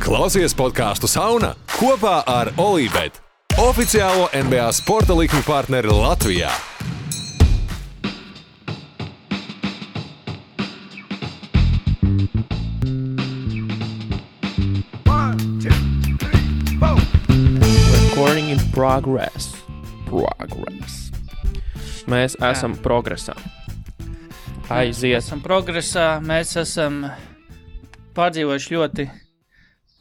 Klausies podcastu Sauna kopā ar Olībet, oficiālo NBA sporta likmi partneri Latvijā. Recording in progress. Mēs esam progresā. Aiziet. Esam progresā, mēs esam pārdzīvojuši ļoti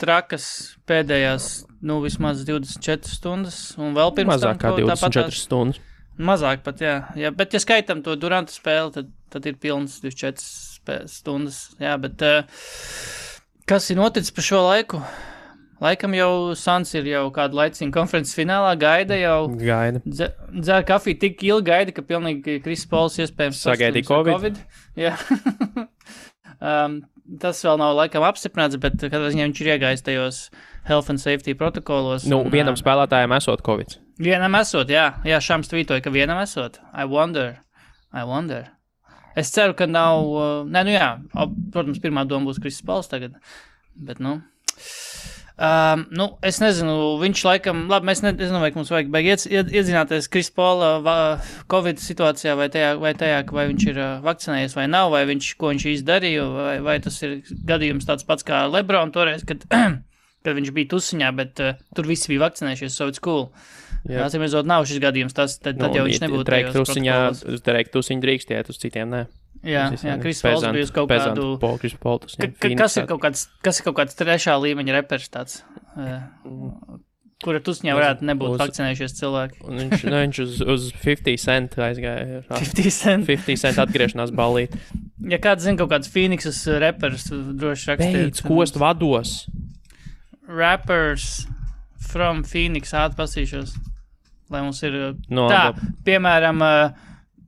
trakas pēdējās, vismaz 24 stundas, un vēl pirms mazāk kā 24 stundas. Mazāk pat, jā. Bet, ja skaitam to Duranta spēli, tad ir pilns 24 stundas. Jā, bet kas ir noticis pa šo laiku? Laikam jau Suns ir jau kādu laicīgu konferences finālā, gaida. Dzēr kafiju tik ilgi gaida, ka pilnīgi Chris Pauls iespējams sagaidīja Covid. Jā. Tas vēl nav laikam apstiprināts, bet kad viņš ir iegājis tajos health and safety protokolos. Vienam spēlētājam esot Covid. Vienam esot, jā. Jā, Šams tvītoja, ka vienam esot. I wonder. Es ceru, ka nav... protams, pirmā doma būs Chris Pauls tagad. Bet, es nezinu, viņš laikam, labi, mēs nezinu, vai mums vajag iedzināties Chris Paula Covid situācijā vai tajā, vai viņš ir vakcinējies vai nav, vai ko viņš izdarīja, vai tas ir gadījums tāds pats kā LeBron toreiz, kad viņš bija tusiņā, bet tur visi bija vakcinējušies, so it's cool. Jā, atsimredzot, nav šis gadījums, tad jau viņš nebūtu tajos protokolos. Drēk tusiņu drīkstiet, uz citiem nē. Jā, Chris Pauls bija uz kaut kādu... Kas ir kaut kāds trešā līmeņa repers tāds, kura tusiņā varētu nebūt vakcinējušies cilvēki? Viņš uz 50 cent aizgāja. 50 cent atgriešanās ballīt. Ja kāds zina kaut kāds Phoenixas repers, droši rakstiet. Beidz, kost vados. Rappers from Phoenix, atpasīšos, lai mums ir piemēram...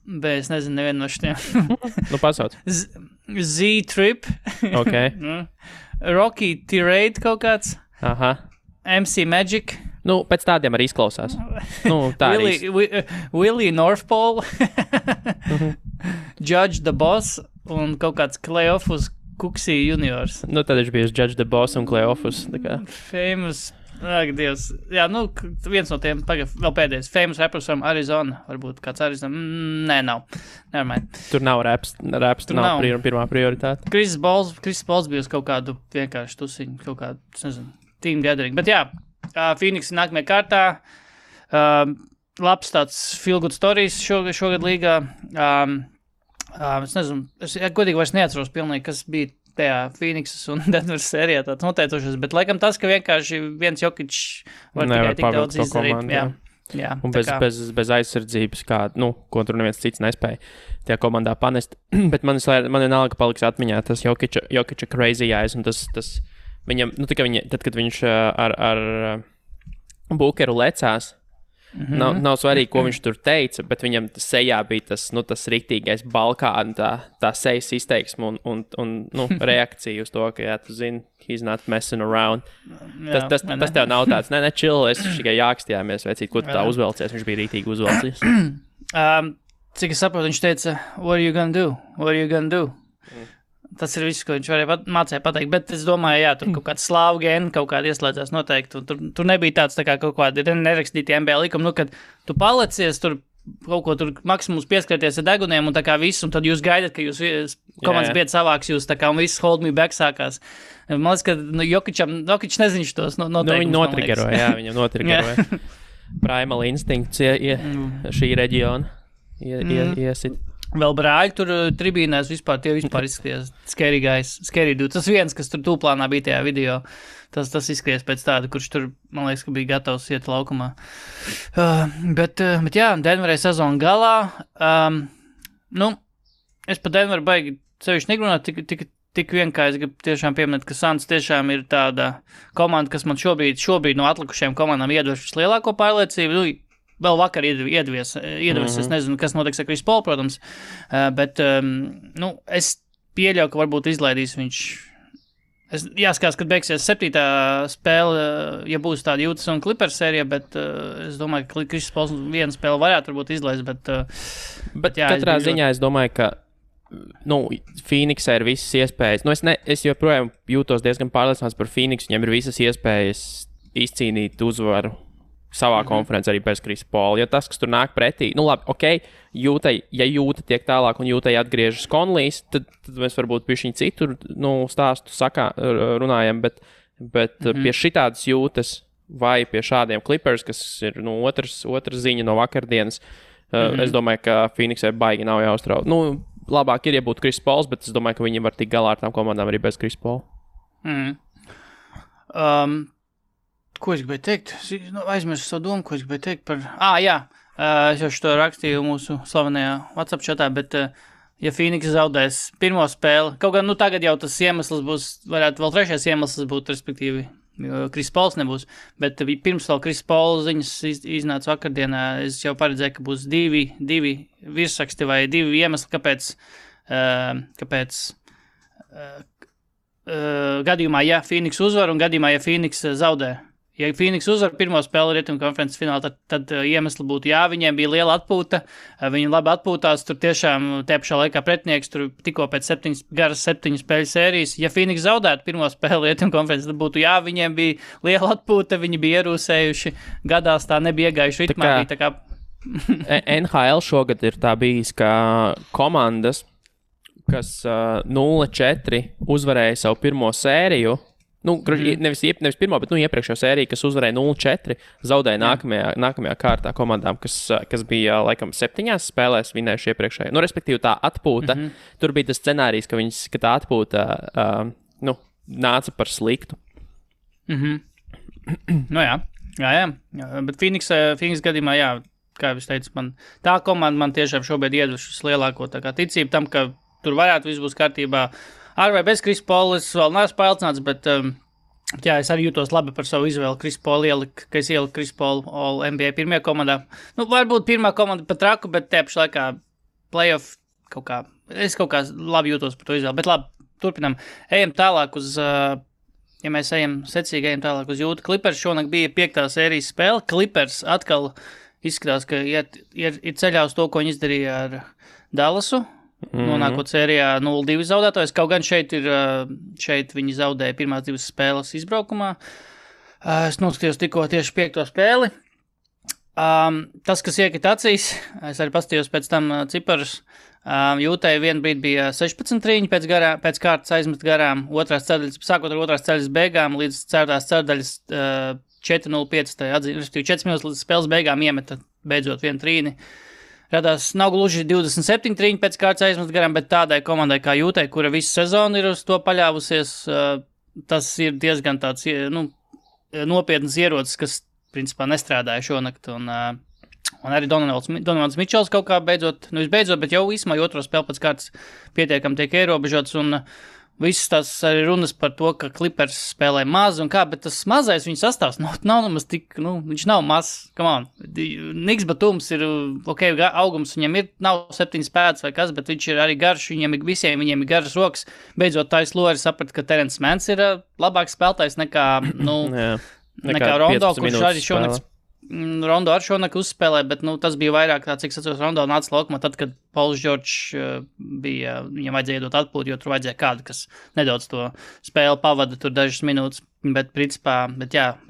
Bet es nezinu nevienu no šitiem. Pasauc. Z-Trip. Ok. Rocky Tirade kaut kāds. Aha. MC Magic. Pēc tādiem arī izklausās. Tā Willie North Pole. Judge the Boss un kaut kāds Cleophas Kuksī juniors. Tad viņš bija Judge the Boss un Cleophas. Famous... Ak, Dievs. Jā, viens no tiem, vēl pēdējais, famous rappers from Arizona, varbūt kāds Arizona, nē, nav, nevermind. Tur nav raps tur nav pirmā prioritāte. Chris Pauls bija uz kaut kādu vienkārši tusiņu, kaut kādu, nezinu, team gathering, bet jā, Phoenix nākamajā kārtā, labs tāds feel good stories šogad līgā, es nezinu, es godīgi vairs neatceros pilnīgi, kas bija tajā Phoenixas un Denveras sērijā tāds noteicošas, bet laikam tas, ka vienkārši viens Jokic var tikai tik daudz izdarīt. Jā, un bez aizsardzības, ko tur neviens cits nespēja tajā komandā panest. Bet man vienalga paliks atmiņā tas Jokica crazy eyes, un tas viņam, tad, kad viņš ar Bookeru lecās, nav svarīgi, ko viņš tur teica, bet viņam sejā bija tas riktīgais Balkāna, tā sejas izteiksme un reakcija uz to, ka, jā, tu zini, he's not messing around. Tas tev nav tāds, chill, es tikai jākstījāmies, vecīt, ko tu tā uzvelcies, viņš bija rītīgi uzvelcies. Cik es saprotu, viņš teica, what are you gonna do? Tas ir viss, ko viņš mācīja pateikt, bet es domāju, jā, tur kaut kāda slāvu gēna kaut kāda ieslēdzās noteikti, un tur nebija tāds tā kā kaut kādi nerakstīti NBA likumi, kad tu palecies, tur kaut ko tur maksimums pieskarties ar deguniem un tā kā viss, un tad jūs gaidat, ka jūs komandas biedri savāks jūs, tā kā un viss hold me back sākās. Man liekas, ka Jokic nezinu tos noteikumus. Viņu notrigeroja, viņam notrigeroja. Primal instinkts šī reģiona iesit. Vēl brāļi tur tribīnēs tie vispār izskatījās scary dude. Tas viens, kas tur tūplānā bija tajā video, tas izskatījās pēc tāda, kurš tur, man liekas, ka bija gatavs iet laukumā. Bet jā, Denverai sezona galā. Es pa Denveru baigi sevišķi negrunāt, tik vien, kā es gribu tiešām pieminēt, ka Suns tiešām ir tāda komanda, kas man šobrīd no atlikušajām komandām iedvež vislielāko pārliecību. Vēl vakar iedvies, es nezinu, kas notiks ar Chris Paul, protams, bet, es pieļauju, ka varbūt izlaidīs viņš. Jāskatās, kad beigsies 7. spēle, ja būs tāda Utah un Clippers sērija, bet es domāju, ka Chris Pauls vienu spēli varētu varbūt izlaist, bet jā. Katrā ziņā es domāju, ka Phoenixai ir visas iespējas. Es joprojām jūtos diezgan pārliecināts par Phoenix. Viņam ir visas iespējas izcīnīt uzvaru savā konferencē arī bez Krisa Paula. Ja tas, kas tur nāk pretī, labi, ok, Jūta tiek tālāk un Jūtai atgriežas Conleys, tad mēs varbūt pie viņa citur stāstu runājam, bet pie šitādas Jūtas vai pie šādiem Clippers, kas ir otrs ziņa no vakardienas, es domāju, ka Phoenixai baigi nav jāuztrauc. Labāk ir, ja būtu Kris Pauls, bet es domāju, ka viņi var tikt galā ar tām komandām arī bez Krisa Paula. Ko es gribēju teikt? Aizmirsu savu domu, ko es gribēju teikt par... jā, es jau šo rakstīju mūsu slavenajā WhatsApp chatā, bet ja Phoenix zaudēs pirmo spēli, kaut gan tagad jau tas iemesls būs, varētu vēl trešais iemesls būt, respektīvi, Kris Pauls nebūs, bet pirms vēl Kris Pauls ziņas iznāca vakardienā, es jau paredzēju, ka būs divi virsraksti vai divi iemesli, kāpēc gadījumā, ja Phoenix uzvar un gadījumā, ja Phoenix zaudē. Ja Phoenix uzvar pirmo spēli Rietumu konferences finālā, tad iemesli būtu, viņiem bija liela atpūta, viņi labi atpūtās, tur tiešām tie pašā laikā pretinieks, tur tikko pēc 7 spēļu sērijas. Ja Phoenix zaudētu pirmo spēli Rietumu konferences, tad būtu, viņiem bija liela atpūta, viņi bija ierūsējuši, gadās tā nebija iegājuši ritmā. NHL šogad ir tā bijis, ka komandas, kas 0-4 uzvarēja savu pirmo sēriju, nevis pirmo, bet iepriekšējo sēriju, kas uzvarēja 0-4, zaudēja nākamajā kārtā komandām, kas bija, laikam, 7 spēlēs vinējuši iepriekšējo. Respektīvi, tā atpūta, tur bija tas scenārijs, ka tā atpūta, nāca par sliktu. Jā, bet Phoenix gadījumā, kā jau es teicu, tā komanda man tiešām šobrīd iedvušas lielāko ticību tam, ka tur varētu viss būs kārtībā. Ar vai bez Krisa Paula es vēl neesmu pārliecināts, bet es arī jūtos labi par savu izvēli Krisa Paula ka es ieliku Krisa Paula All NBA pirmajā komandā. Varbūt pirmā komanda pat traku, bet te pašā laikā playoff es kaut kā labi jūtos par to izvēli. Bet labi, turpinam. Ejam tālāk ja mēs ejam tālāk uz Jūtu. Clippers šonakt bija 5. sērijas spēle. Clippers atkal izskatās, ka ir ceļā uz to, ko viņi izdarīja ar Dallasu. Nonākot sērijā 0-2 zaudētājs, kaut gan šeit viņi zaudēja pirmās 2 spēles izbraukumā. Es noskatījos tikko tieši 5. spēli. Tas, kas iekrit acīs, es arī paskatījos pēc tam ciparus. Jūtai vienu brīdi bija 16 trīņi pēc kārtas aizmest garām, sākot ar otrās ceļas beigām līdz 4. ceļdaļas 4-0-5, respektīvi 4 minūtes līdz spēles beigām iemeta beidzot vienu trīni. Radās nav gluži 27 trīņi pēc kārtas aizmest garām, bet tādai komandai kā Jūtai, kura visu sezonu ir uz to paļāvusies, tas ir diezgan tāds nopietnas ierocis, kas principā nestrādāja šonakt. Un arī Donovans Mičels kaut kā beidzot, bet jau īsumā otro spēli pēc kārtas pietiekam tiek ierobežots. Un visas tās arī runas par to, ka Clippers spēlē maz un kā, bet tas mazais viņa sastāvs nav nemaz tik, viņš nav mazs, come on. Niks Batums ir, augums viņam ir, nav 7 pēdas vai kas, bet viņš ir arī garš, viņiem ir garas rokas. Beidzot Tais Lori saprata, ka Terence Manns ir labāks spēlētājs nekā Rondo, kurš arī šonakt Rondo ar šonakt uzspēlē, bet tas bija vairāk tā, cik sacos Rondo nāca laukumā tad, kad Pauls Džordžs bija, viņam vajadzēja iedot atpūtu, jo tur vajadzēja kādu, kas nedaudz to spēli pavada tur dažas minūtes, bet principā,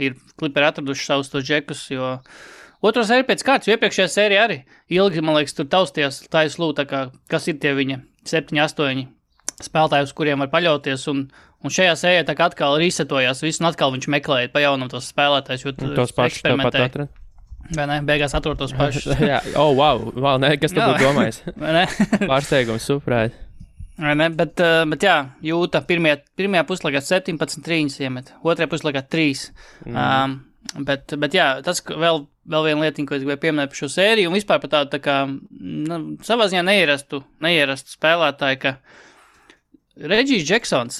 ir Clipperi atraduši savus tos džekus, jo otro sēriju pēc kārtas, jo iepriekšējā sērija arī ilgi, man liekas, tur taustījās Tais Lū, tā kā, kas ir tie viņa 7-8 spēlētāji, uz kuriem var paļauties, un šajā sērijā tā kā atkal resetojās viss, un atkal viņš meklēja pa jaunam tos spēlētājus, jo tur eksperimentēja. Vai ne? Beigās atrod tos pašus. Wow, ne, kas tu būtu domājis? Pārsteigums, superēt. Vai ne, bet Jūta pirmajā puslaikā 17 trīņas iemet, otrajā puslaikā 3. Bet tas vēl viena lietiņa, ko es gribēju pieminēt par šo sēriju, un vispār par tādu, tā kā, savā ziņā neierastu spēlētāju, ka Regijs Džeksons,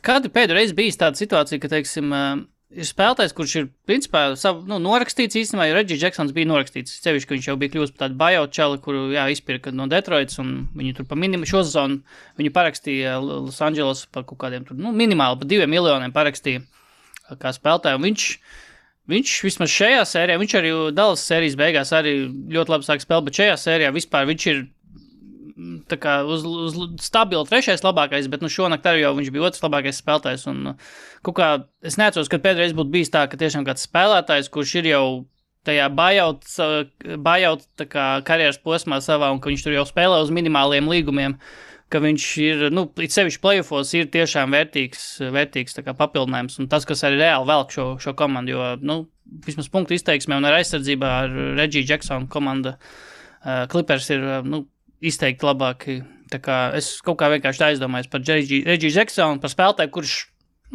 kādu pēdējo reizi bijis tāda situācija, ka, teiksim, ir spēlētājs, kurš ir, principā, norakstīts īstenībā, jo Regijs Džeksons bija norakstīts, sevišķi, ka viņš jau bija kļūst par tādu buyout čali, kuru, izpirka no Detroitas, un viņu tur pa šo sezonu, viņu parakstīja Los Angeles par kaut kādiem tur, minimāli pa 2 miljoniem parakstīja kā spēlētāju, un viņš vismaz šajā sērijā, viņš arī Dallas sērijas beigās arī ļoti labi sāk spēlēt, bet šajā sērijā vispār viņš ir tā kā uz stabilu trešais labākais, bet šonakt arī jau viņš bija otrs labākais spēlētājs. Un kaut kā es neatceros, kad pēdējais būtu bijis tā, ka tiešām kāds spēlētājs, kurš ir jau tajā buyout tā kā karjeras posmā savā, un ka viņš tur jau spēlē uz minimāliem līgumiem, ka viņš ir, it sevišķi playoffos ir tiešām vērtīgs tā kā papildinājums, un tas, kas arī reāli velk šo komandu, jo, vismaz punktu izteiksmē un ar aizsardzībā ar Reggie Jacksonu komanda Clippers ir, izteikti labāki. Tā kā es kaut kā vienkārši aizdomājos par Reggie Jacksonu, par spēlētāju, kurš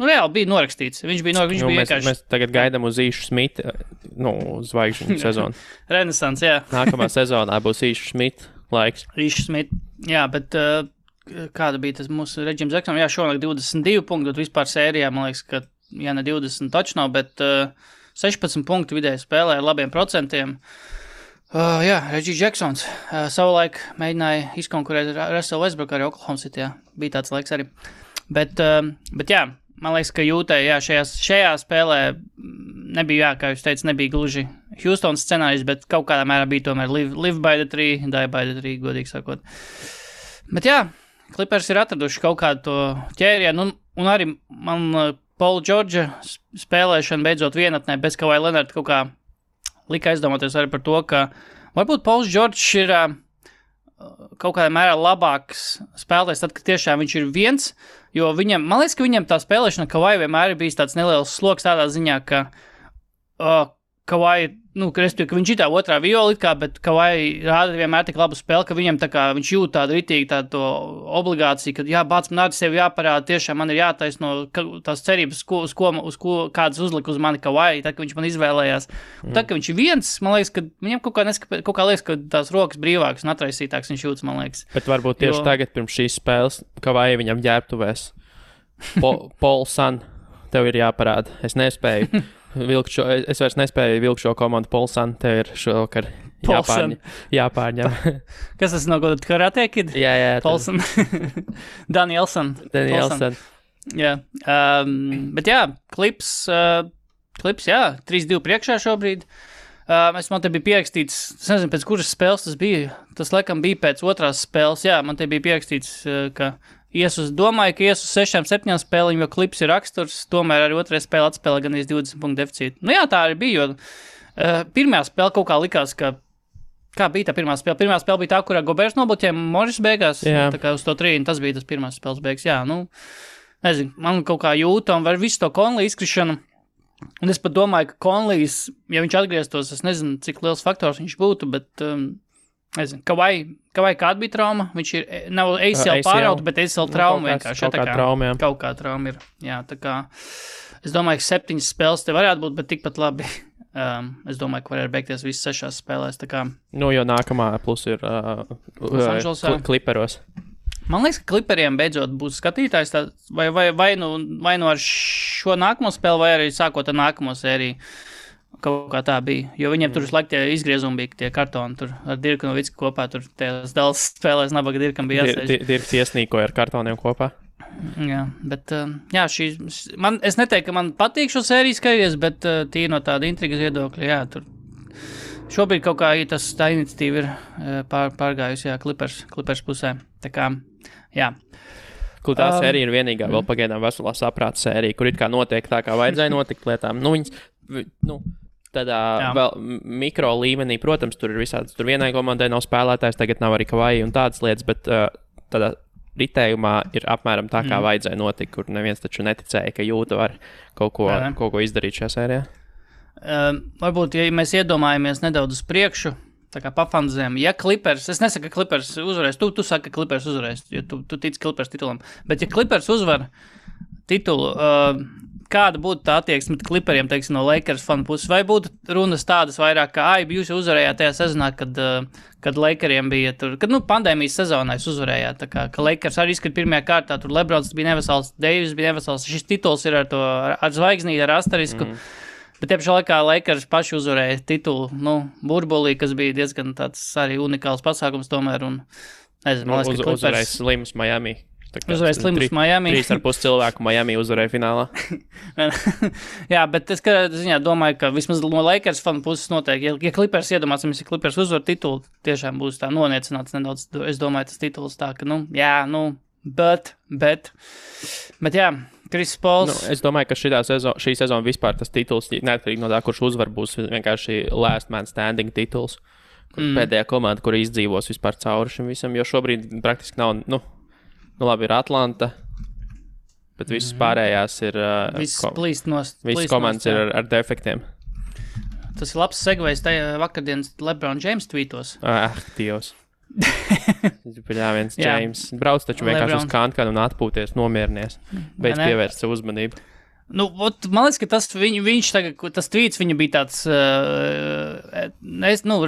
reāli bija norakstīts. Viņš bija vienkārši... Mēs tagad gaidām uz Īšu Smitu, zvaigžņu sezonu. Renesans, jā. Nākamā sezonā būs Īšu Smitu laiks. Īšu Smitu, jā, bet kāda bija tas mūsu Reggie Jacksonu? Jā, šonakt 22 punkti, bet vispār sērijā, man liekas, ka, jā, ne 20 taču nav, bet 16 punktu vidēji spēlē ar labiem procentiem. Jā, Reggie Jacksons savulaik mēģināja izkonkurēt Russell Westbrook arī Oklahoma City, jā. Bija tāds laiks arī. Bet jā, man liekas, ka Jūtai, jā, šajā spēlē nebija, jā, kā jūs teicat, nebija gluži Houstons scenārijs, bet kaut kādā mērā bija tomēr live by the tree, die by the tree, godīgi sakot. Bet jā, Clippers ir atraduši kaut kādu to ķērienu, un arī man Paula Džordža spēlēšana beidzot vienatnē bez Kawhi Leonard kaut kā lika aizdomāties arī par to, ka varbūt Pauls Džordžs ir kaut kādā mērā labāks spēlētājs tad, kad tiešām viņš ir viens, jo man liekas, ka viņam tā spēlēšana Kawhi vienmēr ir bijis tāds neliels sloks tādā ziņā, ka Kawhi, respektīvi, ka viņš ir tā otrā viola, bet Kawhi rāda vienmēr tik labu spēli, ka viņam tā kā viņš jūt tādu ritīgi tādu obligāciju, ka jā, bāc, man arī sevi jāparāda, tiešām man ir jātaisno tās cerības, uz ko kādas uzlika uz mani Kawhi, tad, ka viņš man izvēlējās. Un tad, ka viņš ir viens, man liekas, ka viņam kaut kā liekas, ka tās rokas brīvākas un atraisītāks viņš jūtas, man liekas. Bet varbūt tieši tagad pirms šīs spēles Kawhi viņam ģērbtuvēs. Paul San, tev ir jāparāda. Es nespēju. Es vairs nespēju vilkt šo komandu Polsan, tev ir šovakar jāpārņem. Kas tas no kāda karate kid? Jā. Polsan. Danielson. Jā. Bet jā, klips, jā, 3-2 priekšā šobrīd. Man te bija pierakstīts, es nezinu, pēc kuras spēles tas bija. Tas laikam bija pēc otrās spēles, jā, man te bija pierakstīts, ka domāju, ka ies uz 6-7 spēliņu, jo klips ir raksturs, tomēr arī otrajā spēle atspēlē gan 20 punktu deficītu. Jā, tā arī bija, jo pirmā spēle kaut kā likās, ka kā bija tā pirmā spēle? Pirmā spēle bija tā, kurā Gobers nobloķēja Morris beigās, tā kā uz to 3, tas bija tas pirmās spēles beigas. Jā, nezinu, man kaut kā jūta un var visu to Conley izkrišanu. Un es pat domāju, ka Conleys, ja viņš atgrieztos, es nezinu, cik liels faktors viņš būtu, bet... nezinu, Kawhi kāda bija trauma? Viņš ir, nav ACL pārauta, bet ACL trauma vienkārši. Kaut kā trauma ir. Jā, tā kā, es domāju, ka 7 spēles te varētu būt, bet tikpat labi. Es domāju, ka varētu beigties visas 6 spēlēs, tā kā. Jo nākamā plus ir Clipperos. Man liekas, ka Clipperiem beidzot būs skatītājs, vai nu ar šo nākamo spēli, vai arī sākot ar nākamo sēriju. Kaut kā tā bija, jo viņiem tur visu laiku tie izgriezumi bija, tie kartoni tur ar Dirku Novicku kopā, tur tās Dallas spēlēs nabaga Dirkam bija jāsēž. Dirks iesnīkoja ar kartoniem kopā. Jā, bet, jā, es neteiktu, ka man patīk šo sēriju skaties, bet tīri no tāda intrigas viedokļa, jā, tur šobrīd kaut kā tā iniciatīva ir pārgājusi, jā, Clippers pusē, tā kā, jā. Tā sērija ir vienīgā vēl pagaidām veselā saprāta sērija, kur it kā notiek tā, kā vajadzēja notikt lietām. Tādā vēl mikro līmenī, protams, tur ir visādas. Tur vienai komandai nav spēlētājs, tagad nav arī Kawhi un tādas lietas, bet tādā ritējumā ir apmēram tā, kā vajadzēja notikt, kur neviens taču neticēja, ka Jūta var kaut ko izdarīt šajā sērijā. Varbūt, ja mēs iedomājamies nedaudz uz priekšu, tā kā pafanzēm, ja Clippers, es nesaku, ka Clippers uzvarēs, tu saki, ka Clippers uzvarēs, jo tu tici Clippers titulam, bet ja Clippers uzvar titulu, kāda būtu tā attieksme Clipperiem, teiksim, no Lakers fanu puses, vai būtu runas tādas vairāk, ka, jūs jau uzvarējāt tajā sezonā, kad Lakeriem bija tur, kad, pandēmijas sezonā jūs uzvarējāt, tā kā, ka Lakers arī izskat pirmajā kārtā, tur Lebrons bija nevesels, Davis bija nevesels, šis tituls ir ar zvaigznīti, ar asterisku, bet tiepšā laikā Lakers paši uzvarēja titulu, burbulī, kas bija diezgan tāds arī unikāls pasākums tomēr, un, nezinu, man liekas, ka Clippers... Uzvarēja Slims Miami. Uzvarēja slims Miami. 3,5 cilvēku Miami uzvarēja finālā. Jā, bet es ziņā domāju, ka vismaz no Lakers fanu puses noteikti, ja Clippers iedomāsimies, ja Clippers uzvar titulu, tiešām būs tā noniecināts nedaudz. Es domāju, tas tituls tā, ka, bet jā, Chris Pauls. Es domāju, ka šī sezona vispār tas tituls, neatkarīgi no tā, kurš uzvar, būs vienkārši last man standing tituls. Pēdējā komanda, kur izdzīvos vispār cauri šim visam, jo šobrīd praktiski nav, labi, ir Atlanta, bet visas pārējās ir... Visas komandas ir ar defektiem. Tas ir labs segvejs tajā vakardienas LeBron James tweetos. Dievs. Viens James. Brauc taču vienkārši uz kānkanu un atpūties, nomierinies. Beidz pievērst savu uzmanību. Man liekas, ka viņš tagad, tas tweets viņa bija tāds,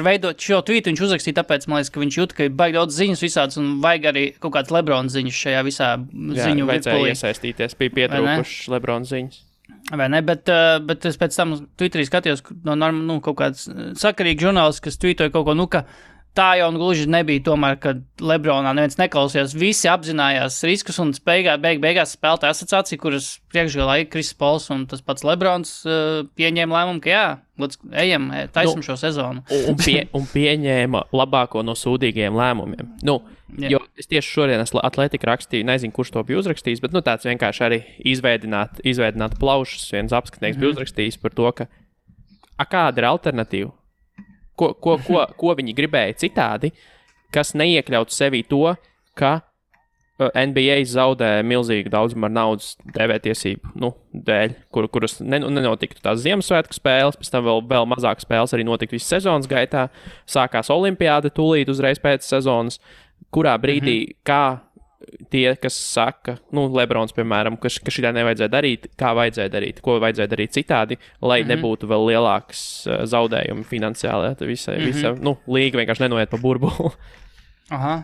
veidot šo tweetu viņš uzrakstīja, tāpēc man liekas, ka viņš jūt, ka ir baigi daudz ziņas visādas un vajag arī kaut kāds LeBron ziņas šajā visā ziņu virpulī. Vajadzēja iesaistīties, bija pietrūkušas LeBron ziņas. Vai ne, bet es pēc tam Twitterī skatījos kaut kāds sakarīgi žurnālists, kas tweetoja kaut ko, ka tā jau gluži nebija tomēr, kad LeBronā neviens neklausījās. Visi apzinājās riskus un beigās spēlētāja asociācija, kuras priekšgalā ir Chris Pauls un tas pats LeBrons pieņēma lēmumu, ka ejam, taisam šo sezonu. Un pieņēma labāko no sūdīgajiem lēmumiem. Jo es tieši šodien Atletika rakstīju, nezinu, kurš to bija uzrakstījis, bet tāds vienkārši arī izveidināt plaušas. Viens apskatnieks bija uzrakstījis par to, ka kāda ir alternatīva? Ko viņi gribēja citādi, kas neiekļautu sevī to, ka NBA zaudē milzīgu daudzumu ar naudas TV-tiesību dēļ, kuras nenotiktu tās Ziemassvētku spēles, pēc tam vēl mazāk spēles arī notika visas sezonas gaitā, sākās olimpiāda tūlīt uzreiz pēc sezonas, kurā brīdī, kā tie, kas saka, Lebrons, piemēram, ka šitā nevajadzēja darīt, kā vajadzēja darīt, ko vajadzēja darīt citādi, lai nebūtu vēl lielāks zaudējumi finansiāli. Visa līga vienkārši nenoiet pa burbuli. Aha.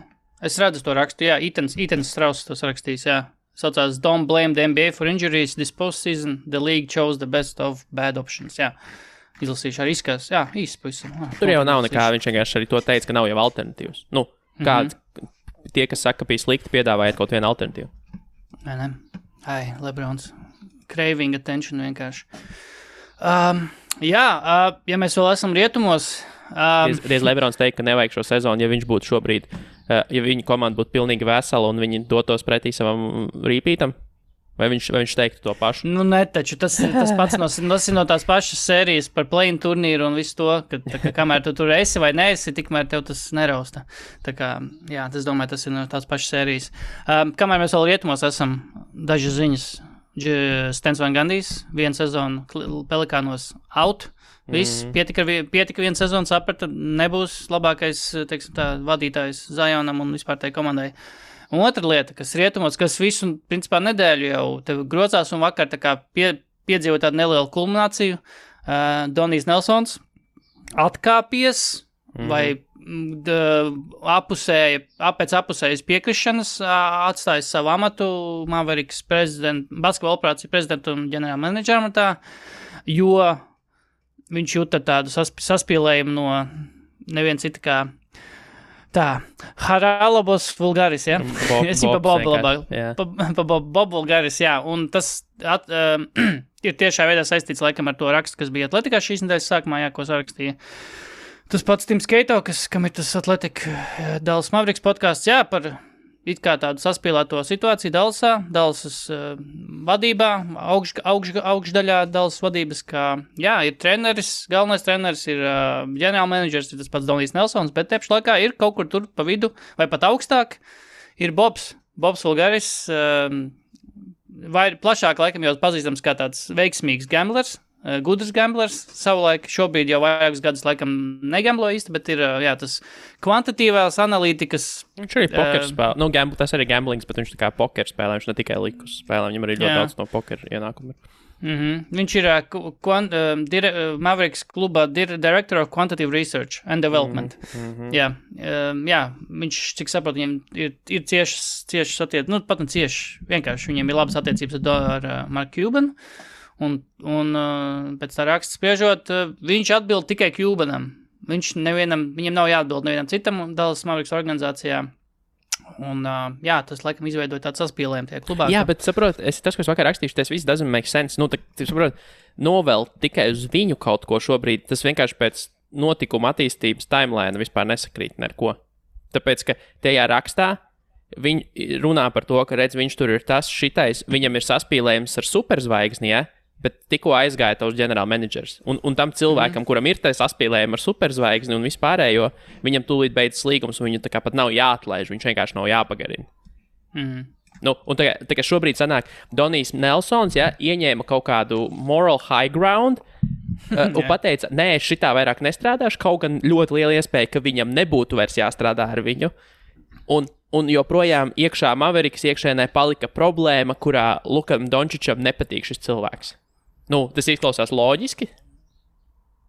Es redzu to rakstu, jā, Etans Strauss tos rakstīs, jā. Saucās Don't blame the NBA for injuries this postseason. The league chose the best of bad options, jā. Izlasīšu arī izskās, jā, īsti pavisam. Tur jau nav nekā, viņš vienkārši arī to teica, ka nav jau alternatīvas. Kāds... Tie, kas saka, ka bija slikti, piedāvājiet kaut vienu alternatīvu. Ne. Lebrons. Craving attention vienkārši. Ja mēs vēl esam rietumos... Reiz Lebrons teica, ka nevajag šo sezonu, ja viņš būtu šobrīd, ja viņa komanda būtu pilnīgi vesela un viņi dotos pretī savam rīpītam. Vai viņš teiktu to pašu? Taču tas pats no tās pašas sērijas par play-in turnīru un visu to, ka kamēr tu tur esi vai neesi, tikmēr tev tas nerausta. Tā kā, jā, es domāju, tas ir no tās pašas sērijas. Kamēr mēs vēl rietumos esam, dažas ziņas. Stens Van Gandijs, vienu sezonu Pelikānos out. Viss, pietika vienu sezonu, saprata, nebūs labākais, teiksim tā, vadītājs Zionam un vispār tai komandai. Un otra lieta, kas rietumos, kas visu, principā, nedēļu jau tev grocās un vakar tā kā piedzīvo tādu nelielu kulmināciju. Donijs Nelsons atkāpies vai pēc apusējas piekrišanas atstājis savu amatu Mavericks basketbola operāciju prezidentu un ģenerāla menedžera amatā, jo viņš jūta tādu saspīlējumu no neviena cita kā Haralabos Vulgaris, jā? Es viņu pa Bob Vulgaris, jā. Un tas ir tiešā veidā saistīts laikam ar to rakstu, kas bija Atletikā šīs nedēļas sākumā, jā, ko sarakstīja. Tas pats Tims Keito, kam ir tas Atletika Dallas Mavericks podcasts, jā, par it kā tādu saspīlēto situāciju Dallasas vadībā, augšdaļā Dallas vadības, kā, jā, ir treneris, galvenais treneris ir ģenerāla menedžers, ir tas pats Donijs Nelsons, bet tepš laikā ir kaut kur tur pa vidu, vai pat augstāk, ir Bobs Vulgaris, vai plašāk laikam jau pazīstams kā tāds veiksmīgs gamblers, gudrs gamblers, savulaik šobrīd jau vairākus gadus laikam negamblo īsti, bet ir, jā, tas kvantitīvās analītikas. Viņš arī poker spēlē. Tas arī gamblings, bet viņš tā kā poker spēlē, viņš ne tikai likus spēlē, viņam arī ļoti daudz no poker ienākumu. Viņš ir Mavericks klubā Director of Quantitative Research and Development. Jā, viņš, cik saprot, viņiem ir ciešas attiecības, pat ne cieši, vienkārši viņiem ir labas attiecības ar Mark Cuban. Un pēc tā raksta spriežot, viņš atbild tikai Cubanam. Viņam nav jāatbild nevienam citam Dallas Mavericks organizācijā. Un, jā, tas, laikam, izveidoja tādu saspīlējumu tajā klubā. Jā, bet, saprot, tas, ko es vakar rakstīšu, tas viss doesn't make sense. Nu, saprot, novēl tikai uz viņu kaut ko šobrīd, tas vienkārši pēc notikuma attīstības timeline vispār nesakrīt neko. Tāpēc, ka tajā rakstā viņi runā par to, ka, redz, viņš tur ir tas, šitais, viņam ir saspīlējums ar superzvaigzni, ja? Bet tikko aizgāja tavs ģenerālmenedžers. Un tam cilvēkam, kuram ir tas saspīlējums ar superzvaigzni un vispārējo, viņam tūlīt beidzas līgums, un viņu tā kā pat nav jāatlaiž, viņš vienkārši nav jāpagarina. Nu, un tā kā šobrīd sanāk, Donijs Nelsons, ja, ieņēma kaut kādu moral high ground un pateica, nē, es šitā vairāk nestrādāšu, kaut gan ļoti liela iespēja, ka viņam nebūtu vairs jāstrādā ar viņu. Un joprojām iekšā Maverikas iekšēnē palika problēma, kurā Lukam Dončičam nepatīk šis cilvēks. Nu, tas izklausās loģiski.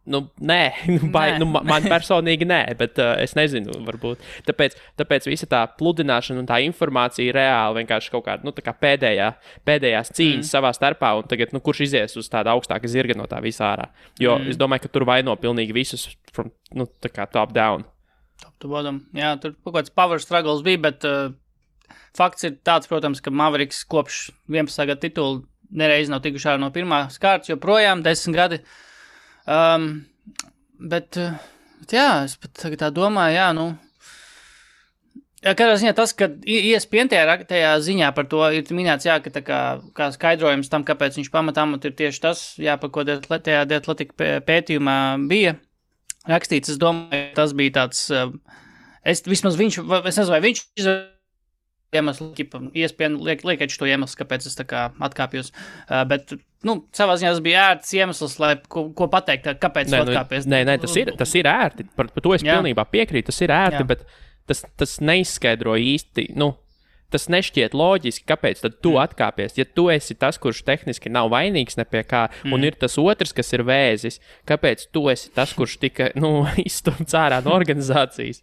Nu, nē, man personīgi nē, bet es nezinu, varbūt. Tāpēc visa tā pludināšana un tā informācija reāli vienkārši kaut kāda, tā kā pēdējās cīņas savā starpā, un tagad, kurš izies uz tāda augstāka zirga no tā visā ārā. Jo es domāju, ka tur vaino pilnīgi visus, tā kā top down. Top to bottom. Jā, tur kaut kāds power struggles bija, bet fakts ir tāds, protams, ka Mavericks kopš 11. gada titulu nereiz nav tikuši ārā no pirmās kārtas, joprojām 10 gadi. Bet jā, es pat tagad tā domāju, jā, kādā ziņā tas, ka ESPN tajā ziņā par to ir minēts, jā, ka tā kā skaidrojums tam, kāpēc viņš pamatā ir tieši tas, jā, par ko tajā Athletic pētījumā bija rakstīts, es domāju, tas bija tāds, es nezinu, vai viņš iemesls, ESPN liekot to iemeslu, kāpēc es tā kā atkāpjos, bet, savā ziņā tas bija ērts iemesls, lai ko pateikt, kāpēc atkāpies. Nē, tas ir ērti, par to es pilnībā piekrītu, tas ir ērti, bet tas neizskaidro īsti, tas nešķiet loģiski, kāpēc tad tu atkāpies, ja tu esi tas, kurš tehniski nav vainīgs ne pie kā, un ir tas otrs, kas ir vēzis, kāpēc tu esi tas, kurš tika, izstumts ārā no organizācijas.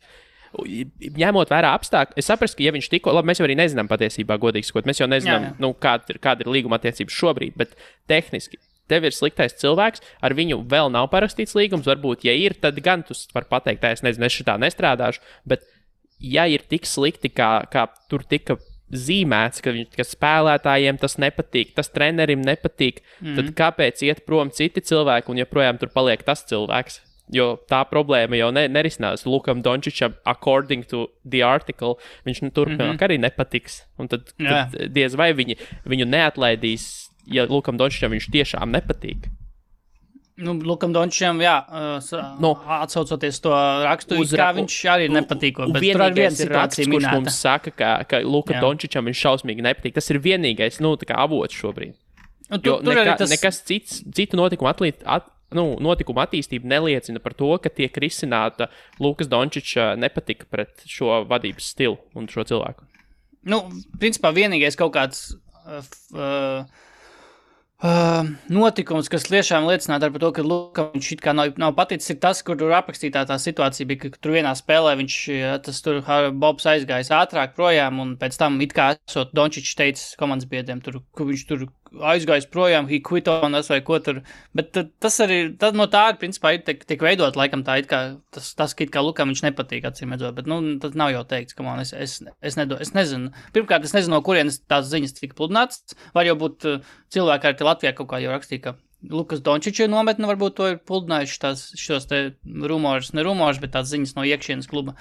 Ņemot vērā apstākļi, es saprastu, ka ja viņš tikko, labi, mēs jau arī nezinām patiesībā, godīgi sakot, mēs jau nezinām, kāda ir līguma attiecības šobrīd, bet tehniski tev ir sliktais cilvēks, ar viņu vēl nav parakstīts līgums, varbūt, ja ir, tad gan tu vari pateikt, es nezinu, es šitā nestrādāšu, bet ja ir tik slikti, kā tur tika zīmēts, ka spēlētājiem tas nepatīk, tas trenerim nepatīk, tad kāpēc iet prom citi cilvēki un joprojām tur paliek tas cilvēks? Jo tā problēma jau nerisinās. Lukam Dončičam, according to the article, viņš turpmāk arī nepatiks. Un tad diez vai viņu neatlaidīs, ja Lukam Dončičam viņš tiešām nepatīk. Lukam Dončičam, jā, atsaucoties to rakstu, kā viņš arī nepatīko, bet tur ar vienu situāciju minēta. Kurš mums saka, ka Lukam Dončičam viņš šausmīgi nepatīk. Tas ir vienīgais, tā kā avots šobrīd. Jo nekas citu notikuma attīstība neliecina par to, ka tiek risināta Lukas Dončiča nepatika pret šo vadības stilu un šo cilvēku. Principā vienīgais kaut kāds notikums, kas tiešām liecinātu par to, ka Lukam viņš it kā nav paticis, ir tas, kur tur aprakstītā tā situācija bija, ka tur vienā spēlē Bobs aizgājis ātrāk projām, un pēc tam it kā esot Dončičs teicis komandas biedriem, ka viņš tur aizgājis projām, he quit on us vai ko tur, bet tas arī, no tā ir principā tiek veidot, laikam tā it kā, tas it kā Lukam viņš nepatīk, acīm redzot, bet, tas nav jau teikts, ka man, es nezinu. Pirmkārt, es nezinu, no kurienes tās ziņas tika pludināts, var jau būt cilvēki arī Latvijā kaut kā jau rakstīja, ka Lukas Dončiča nometne varbūt to ir pludinājuši šos te rumors, bet tās ziņas no iekšienes kluba.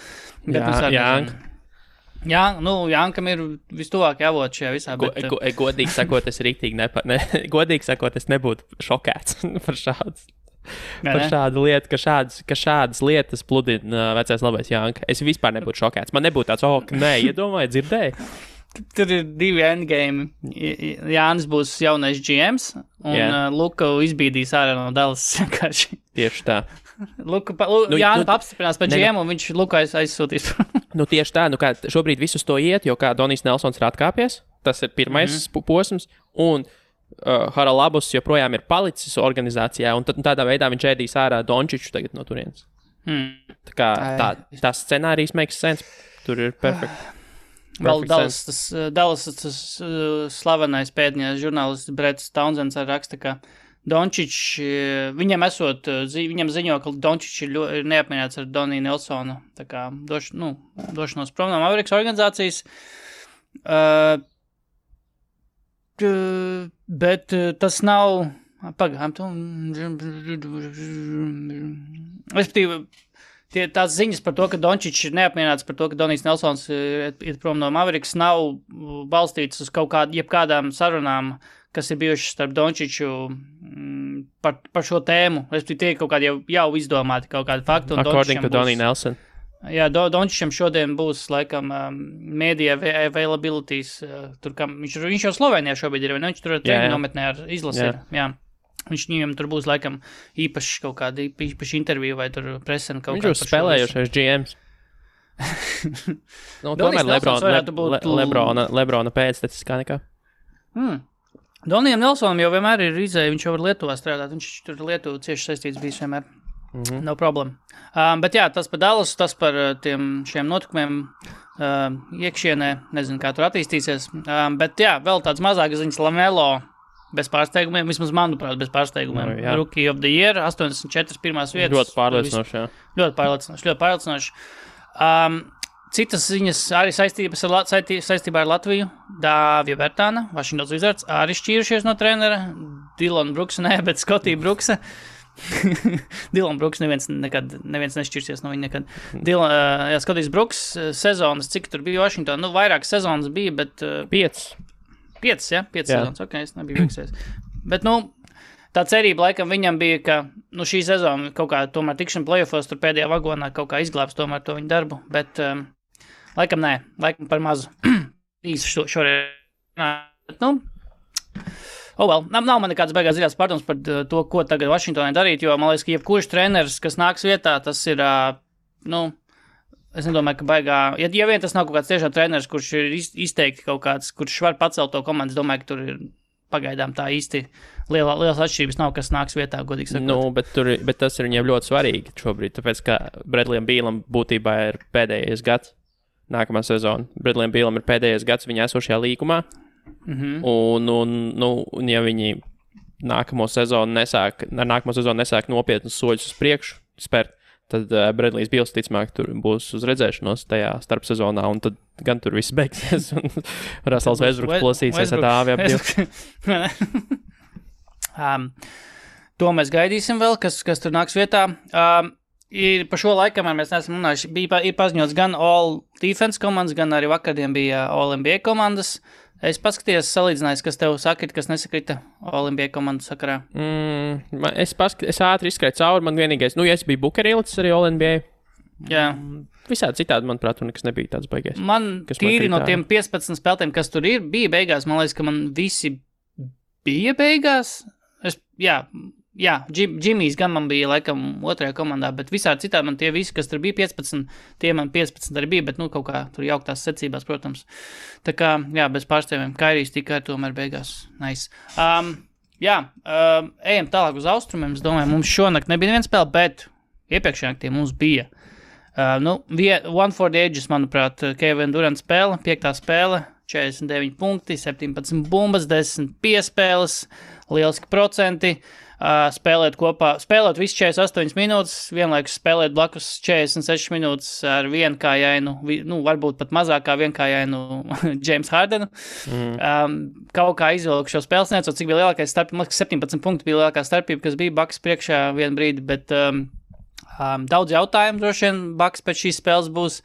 Jānkam ir vistuvāk jāvot šajā visā. Godīgi sakot, godīgi sakot, es nebūtu šokēts par šādu lietu, ka šādas lietas pludina vecais labais Jānka. Es vispār nebūtu šokēts. Man nebūtu tāds, iedomāju, dzirdēju. Tur ir divi endgame. Jānis būs jaunais GMs, un Luka izbīdīs ārā no Dallas vienkārši. Tieši tā. Jānis apstiprinās par GM, un viņš Luka aizsūtīs. Tieši tā, kā šobrīd visus to iet, jo kā Donijs Nelsons ir atkāpies, tas ir pirmais posms, un Haralabus joprojām ir palicis organizācijā, un tādā veidā viņš ēdīs ārā Dončiču tagad no turienes. Tā kā tā scenārijs makes sense, tur ir perfect. Vēl Dallas tas slavenais pētnieks žurnālists Bretts Townsends raksta, ka Dončičs, viņam ziņo, ka Dončičs ir neapmierināts ar Doniju Nelsonu, tā kā došanos prom no Mavericks organizācijas. Bet tas nav, respektīvi, tās ziņas par to, ka Dončičs ir neapmierināts par to, ka Donijs Nelsons ir prom no Mavericks, nav balstīts uz jebkādām sarunām, kas ir bijušas starp Dončiču par šo tēmu. Respektīvi, tie ir kaut kādi jau izdomāti kaut kādi fakti. According to Doniju Nelson. Jā, Dončičam šodien būs, laikam, media availabilities, tur, viņš jau Slovenijā šobrīd ir, vai ne? Viņš tur treniņu nometnē ar izlasi ir, jā. Viņam tur būs, laikam, īpaši kaut kāda īpaši intervija vai tur presen kaut kāda. Viņš jau spēlējušais GMs. Tomēr Lebrona pēctecis kā nekā. Donijam Nelsonam jau vienmēr ir izēja, viņš jau var Lietuvā strādāt, viņš tur Lietuvu cieši saistīts bijis vienmēr. No problēma. Bet jā, tas par Dallasu, tas par šiem notikumiem iekšienē, nezinu, kā tur attīstīsies. Bet jā, vēl tāds mazākas ziņas LaMelo bez pārsteigumiem, vismaz manuprāt, bez pārsteigumiem. Rookie of the Year, 84 pirmās vietas. Ļoti pārliecinoši, jā. Ļoti pārliecinoši. Citas ziņas arī saistībā ar Latviju. Dāvija Bertāna, Washington Wizards, arī šķīrušies no trenera. Dillon Brooksa, bet Scottie Brooksa. Dillon Brooks neviens nešķirsies no viņa nekad. Scotties Brooks sezonas, cik tur bija Washington? Vairāk sezonas bija, bet... 5 sezonas, ok, es nebiju veiksies. Bet, tā cerība laikam viņam bija, ka, šī sezona kaut kā tomēr tikšana playoffos tur pēdējā vagonā kaut kā izglābs tomēr to viņa darbu, bet laikam nē, laikam par mazu. Īsti šoreiz. Nav man nekādas beigās dziļās pārdomas par to, ko tagad Vašingtonai darīt, jo man liekas, ka jebkurš treneris, kas nāks vietā, tas ir, es nedomāju, ka baigā, ja vien tas nav kaut kāds tiešām treneris, kurš ir izteikti kaut kāds, kurš var pacelt to komandu, es domāju, ka tur ir pagaidām tā īsti lielas atšķirības nav, kas nāks vietā, godīgi sakot. Bet tas ir viņiem ļoti svarīgi šobrīd, tāpēc, ka Bradleyam Bealam būtībā ir pēdējais gads, nākamā sezona. Bradleyam Bealam ir pēdējais gads viņa esošajā līgumā, un ja viņi nākamo sezonu nesāk nopietnus soļus uz priekšu spērt, tad Bradley's Beals ticamāk tur būs uz redzēšanos tajā starpsezonā, un tad gan tur viss beigsies, un Russells Westbrooks plosīsies ar dāvi ap divu. To mēs gaidīsim vēl, kas tur nāks vietā. Ir pa šo laikam, mēs neesam runājuši, ir paziņots gan All Defense komandas, gan arī vakardien bija All NBA komandas. Es paskatījos, salīdzinājos, kas tev sakrita, kas nesakrita All NBA komandas sakarā. Es ātri izskrēju cauri, man vienīgais, ja es biju Booker ielicis arī All NBA. Jā. Visādi citādi, manuprāt, tur nekas nebija tāds baigais. Man tīri no tiem 15 spēlētiem, kas tur ir, bija beigās, man liekas, ka man visi bija beigās. Jā, Jimmy's gan man bija laikam otrajā komandā, bet visādi citādi man tie visi, kas tur bija 15, tie man 15 arī bija, bet kaut kā tur jauktās secībās, protams. Tā kā, jā, bez pārstāvjiem, Kairijs tikai tomēr beigās. Nice. Ejam tālāk uz austrumiem, es domāju, mums šonakt nebija neviens spēle, bet iepriekšējā naktī mums bija. One for the Ages, manuprāt, Kevin Durant spēle, 5. spēle, 49 punkti, 17 bumbas, 10 piespēles, lieliski procenti. Spēlēt visu 48 minūtes, vienlaikus spēlēt blakus 46 minūtes ar vienkājainu, varbūt pat mazākā vienkājainu James Hardenu. Kaut kā izvilku šo spēles, necot, cik bija lielākais starpība, 17 punkti bija lielākā starpība, kas bija Bucks priekšā vienu brīdi, bet daudz jautājumu droši vien Bucks pēc šīs spēles būs.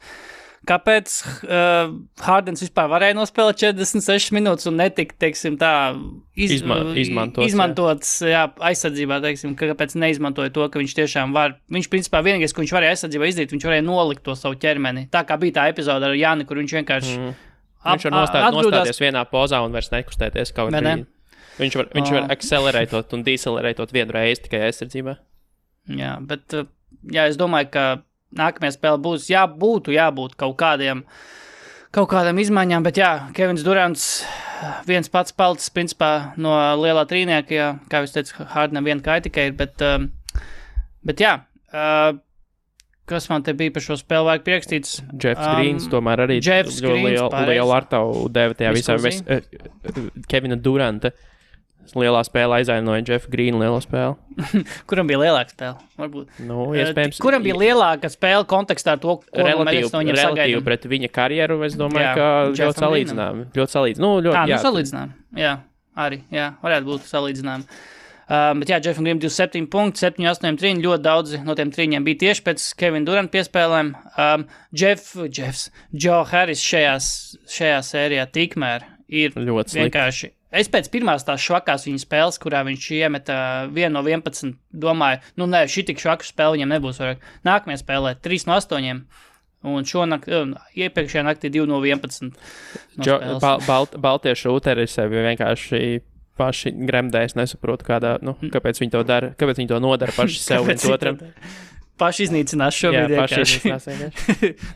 Kāpēc Hardens vispār varēja nospēlēt 46 minūtes un netika, teiksim, tā izmantots aizsardzībā, teiksim, kāpēc neizmantoja to, ka viņš tiešām var. Viņš, principā, vienīgais, ko viņš varēja aizsardzībā izdarīt, viņš varēja nolikt to savu ķermeni. Tā kā bija tā epizoda ar Jāni, kur viņš vienkārši viņš var nostāties vienā pozā un vairs nekustēties kaut kā. Viņš var akcelerētot un decelerētot vienu reizi tikai aizsardzībā. Jā, bet es domāju, ka nākamajā spēle būs jābūt kaut kādām izmaiņām, bet Kevins Durants viens pats palicis, principā, no lielā trīnieka, kā jūs teicu, Hardenam viena kāja tikai ir, bet kas man te bija par šo spēli vajag priekšstīts? Jeffs Greens tomēr arī lielu artavu deva tajā visā Kevina Duranta lielā spēle aizvainoja Jeffa Greena lielo spēli. Kuram bija lielāka spēle? Varbūt. Nu, iespējams. Kuram bija lielāka spēle kontekstā ar to, ko mēs no viņam sagaidām? Pret viņa karjeru, es domāju, ka ļoti salīdzinām. Salīdzinām. Jā, arī, varētu būt salīdzinām. Bet Jeffam Greenam 27 punkti, 7-8 trīņi, ļoti daudzi no tiem trīņiem bija tieši pēc Kevina Duranta piespēlēm. Joe Harris šajā sērijā tikmēr ir ļoti vienkārši. Es pēc pirmās tās švakās viņa spēles, kurā viņš iemeta 1 no 11, domāju, šī tik švaku spēle viņam nebūs vairāk. Nākamajā spēlē 3 no 8. Un iepriekšējā naktī 2 no 11. Baltie šūteri sevi vienkārši paši gremdē, es nesaprotu, kāpēc viņi to dara, kāpēc viņi to nodara paši sev viens otram. Paši iznīcinās šobrīd vienkārši.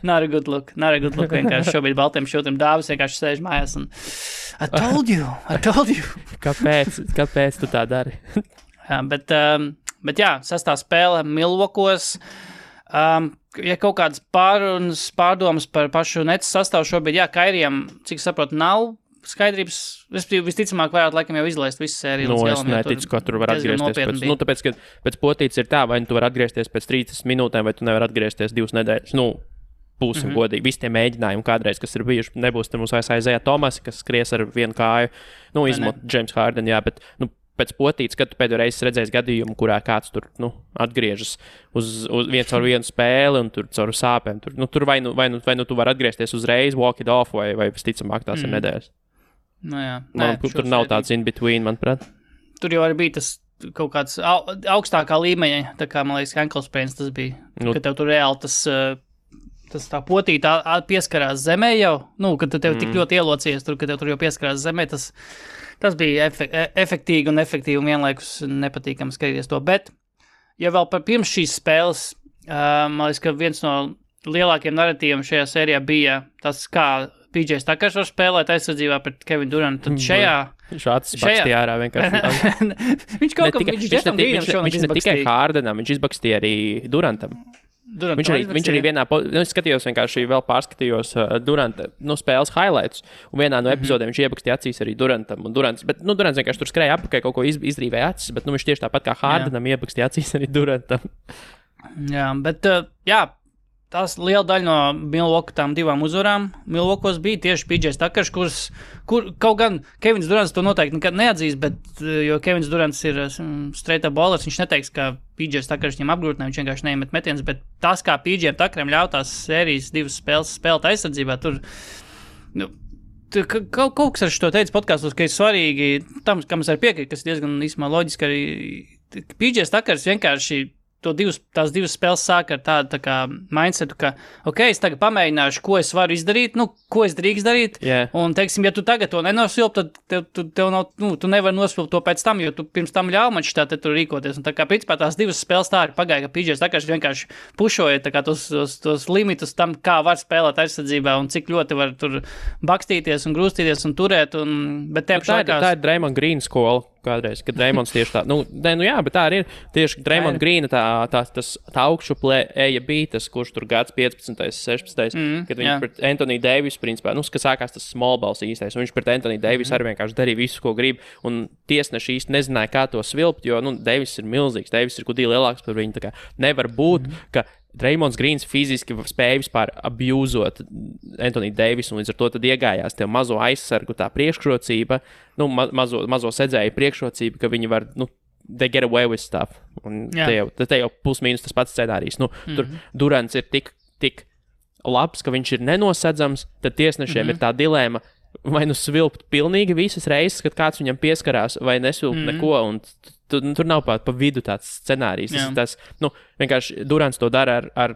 Not a good look vienkārši šobrīd baltiem šūtiem dāvis vienkārši sēž mājās un I told you. Kāpēc tu tā dari? Bet sastā spēle Milwaukeeos. Ja kaut kādas pārdomas par pašu Nets sastāvu šobrīd, Kairijam, cik saprotu, nav skaidrības, visticamāk varētu laikam jau izlaist visu sēriju. Es neticu, ka tur var atgriezties tāpēc, ka pēc potītes ir tā, vai tu var atgriezties pēc 30 minūtēm, vai tu nevar atgriezties 2 nedēļas. Būsim godīgi. Visi tie mēģinājumi kādreiz, kas ir bijuši, nebūs te mums aizēja Tomasi, kas skries ar vienu kāju, izmot James Harden, bet, pēc potītes, kad tu pēdējo reizi redzēsi gadījumu, kurā kāds tur, atgriežas uz viens caur vienu spēli un tur caur sāpēm. Tur vai nu tu var atgriezties uzreiz, walk it off, vai visticamāk tās ir nedēļas. Tur nav tāds in between, manuprāt. Tur jau arī bija tas kaut kāds augstākā līmeņa, tā kā, man liekas, ankle sprains tas bija, ka tev tur reāli tas tā potīta pieskarās zemē jau, kad tev tik ļoti ielocies tur, ka tev tur jau pieskarās zemē, tas bija efektīgi un vienlaikus nepatīkami skatīties to, bet, ja vēl pirms šīs spēles, man liekas, ka viens no lielākiem narratīviem šajā sērijā bija tas, kā PJ Tuckers var spēlēt aizsardzībā pret Kevinu Durantu, tad šajā... Viņš atsbakstīja ārā vienkārši. Viņš ne tikai Hardenam, viņš izbakstīja arī Durantam. Viņš arī vienā, es skatījos vienkārši vēl pārskatījos Duranta, spēles highlights, un vienā no epizodēm viņš iebakstīja acīs arī Durantam, un Durants vienkārši tur skrēja apakaļ, kaut ko izrīvēja acis, bet viņš tieši tāpat kā Hardenam iebakstīja acīs arī Durantam. Jā, bet, tās liela daļa no Milwaukee tām 2 uzvarām Milwaukeeos bija tieši PJ Tuckers, kur kaut gan Kevins Durants to noteikti nekad neatzīs, bet, jo Kevins Durants ir straight up bowlers, viņš neteiks, ka PJ Tuckers viņam apgrūtina, viņš vienkārši neiemet metienus, bet tas, kā PJ Tuckeram ļautās sērijas 2 spēles spēlēt aizsardzībā, tur, kaut kas ar šo teicu podkastos, ka ir svarīgi, tam, kam es arī piekrītu, kas ir diezgan īsumā loģiski, arī PJ Tuckers vienkārši tās 2 spēles sāk ar tādu tā kā mindsetu, ka, es tagad pamēģināšu, ko es varu izdarīt, ko es drīkst darīt, un, teiksim, ja tu tagad to nenosvilp, tad tev nav, tu nevari nosvilpt to pēc tam, jo tu pirms tam ļauj man šitā te tur rīkoties, un tā kā, principā, tās 2 spēles tā arī pagāja, ka PJ Tuckers vienkārši pušoja tā kā tos limitus tam, kā var spēlēt aizsardzībā, un cik ļoti var tur bakstīties un grūstīties un turēt, bet tā ir Draymond Green skola. Kādreiz, kad Draymonds tieši tā, bet tā arī ir tieši Draymond Greena tā augšuplē eja bija tas, kurš tur gads 15. 16. Kad viņš pret Anthony Davis, principā, ka sākās tas small balls īstais, un viņš pret Anthony Davis arī vienkārši darīja visu, ko grib, un tiesneši īsti nezināja, kā to svilpt, jo, Davis ir milzīgs, Davis ir kudī lielāks par viņu, tā kā nevar būt, ka Draymonds Greens fiziski spēja vispār abjūzot Anthony Davis, un līdz ar to tad iegājās tev mazo aizsargu tā priekšrocība, mazo sedzēju priekšrocība, ka viņi var, they get away with stuff. Un te jau plus-mínus tas pats scenārijs. Tur Durants ir tik labs, ka viņš ir nenosedzams, tad tiesnešiem ir tā dilēma, vai svilpt pilnīgi visas reizes, kad kāds viņam pieskarās, vai nesvilpt neko, un tur nav pa vidu tāds scenārijs. Tas vienkārši Durants to dara ar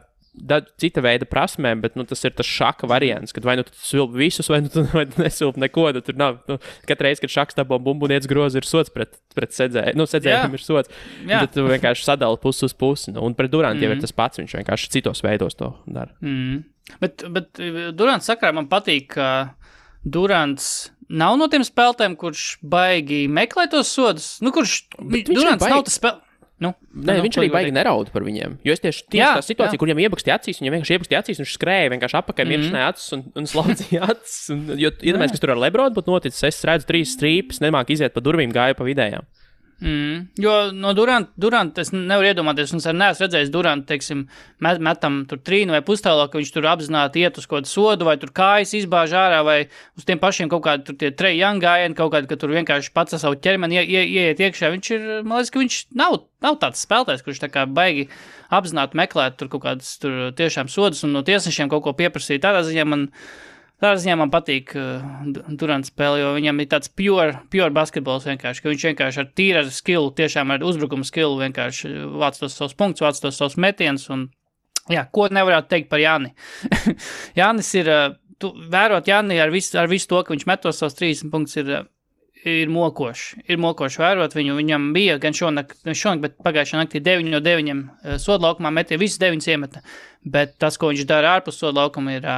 cita veida prasmēm, bet tas ir tas šaka variants, kad vai tu svilp visus, vai tu nesvilp neko, tad tur nav. Katru reizi, kad šaks dabā bumbuniec grozi, ir sots pret sedzēju. Sedzējiem ir sots. Tad tu vienkārši sadali pusi uz pusi. Un pret Durantu jau ir tas pats, viņš vienkārši citos veidos to dara. Bet Durants sakarā man patīk, ka Durants nav no tiem spēlētājiem, kurš baigi meklē tos sodus. Durants nav tas spēlētājs. Viņš arī baigi neraud par viņiem. Jo es tieši tā situācija, kur viņam iebakstīja acīs, viņam vienkārši iebakstīja acīs, viņš skrēja vienkārši apakaļ, miršanai acis un slaudzīja acis. Jo iedomājies, kas tur ar Lebronu būtu noticis, es redzu 3 strīpes, nemāk iziet pa durvīm, gāju pa vidējām. Jo no Duranta es nevaru iedomāties, un es arī neesmu redzējis Duranta, teiksim, metam tur 3 vai pustālā, ka viņš tur apzināti iet uz kaut kādu sodu, vai tur kājas izbāž ārā, vai uz tiem pašiem kaut kādi tur tie Trae Young gājieni, kaut kādi, ka tur vienkārši pats ar savu ķermeni ieiet iekšā. Viņš ir, man liekas, ka viņš nav tāds spēlētājs, kurš tā kā baigi apzināti meklēt tur kaut kādas tur tiešām sodus un no tiesnešiem kaut ko pieprasīt. Tādā ziņā man patīk Durants spēle, jo viņam ir tāds pure basketbols vienkārši, ka viņš vienkārši ar tīra skillu, tiešām ar uzbrukuma skillu vienkārši vāc tos savus punktus, vāc tos savus metienus un, ko nevarētu teikt par Jāni. Jānis ir, vērot Jāni ar visu to, ka viņš met tos savus 30 punktus ir mokoši. Ir mokoši vērot viņu, viņam bija gan šonakt, bet pagājušā naktī 9 no 9 sodlaukumā metie, visus 9 iemeta, bet tas, ko viņš dara ārpus sodlaukuma ir...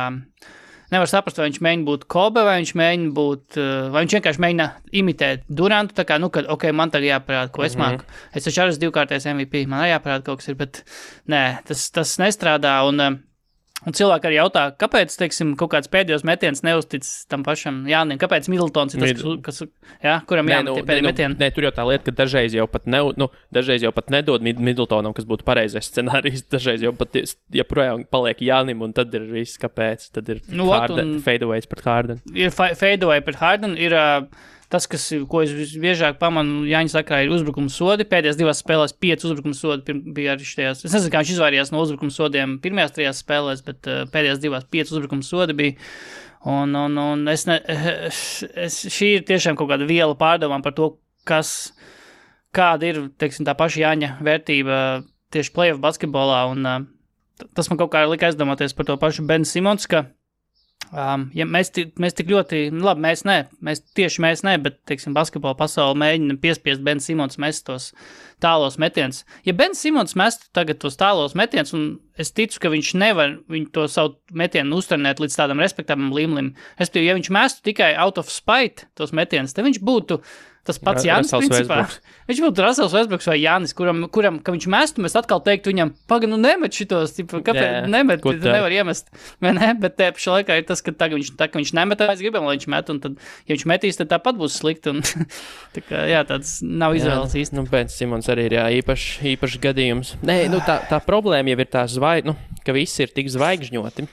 Nevar saprast, vai viņš mēģina būt Kobe, vai viņš mēģina būt, vai viņš vienkārši mēģina imitēt Durantu, tā kā, kad, man tagad jāparāda, ko es māku. Es taču arī esmu 2-kārtais MVP, man arī jāparāda kaut kas ir, bet nē, tas nestrādā, un cilvēki arī jautā, kāpēc, teiksim, kaut kāds pēdējos metiens neuztic tam pašam Jānim, kāpēc Middletons ir tas, kuram jāmet tie pēdējie metieni? Nē, tur jau tā lieta, ka dažreiz jau pat nedod Middletonam, kas būtu pareizais scenārijs, dažreiz jau pat joprojām paliek Jānim, un tad ir viss, kāpēc, tad ir fadeaways pret Harden. Ir fadeaway pret Harden, ir... Tas, ko es biežāk pamanu Jāņa sakrā, ir uzbrukuma sodi. Pēdējās 2 spēlēs 5 uzbrukuma sodi bija arī štajās. Es nezinu, kā viņš izvairījās no uzbrukuma sodiem pirmajās 3 spēlēs, bet pēdējās 2 5 uzbrukuma sodi bija. Un šī ir tiešām kaut kāda viela pārdomām par to, kāda ir, teiksim, tā paša Jāņa vērtība tieši playoff basketbolā. Un tas man kaut kā lika aizdomāties par to pašu Ben Simons, ka ja mēs tik ļoti, labi, mēs ne, bet, teiksim, basketbola pasauli mēģina piespiest Ben Simons mest tos tālos metiens. Ja Ben Simons mestu tagad tos tālos metiens, un es ticu, ka viņš nevar to savu metienu uzturnēt līdz tādam respektabam līmenim, respektīvi, ja viņš mestu tikai out of spite tos metienus, tad viņš būtu tas pats Jānis, principā. Viņš būtu Russells Westbrooks vai Jānis, kuram, ka viņš mestu, mēs atkal teiktu viņam, nemet šitos, kāpēc nemet, tu nevar iemest, vai ne? Bet te pašā laikā ir tas, ka viņš nemet, mēs gribam, lai viņš met, un tad, ja viņš metīs, tad tāpat būs slikti, un tā kā, tāds nav izvēles īsti. Ben Simons arī ir, īpašs gadījums. Nē, tā problēma jau ir tā ka visi ir tik zvaigžņoti.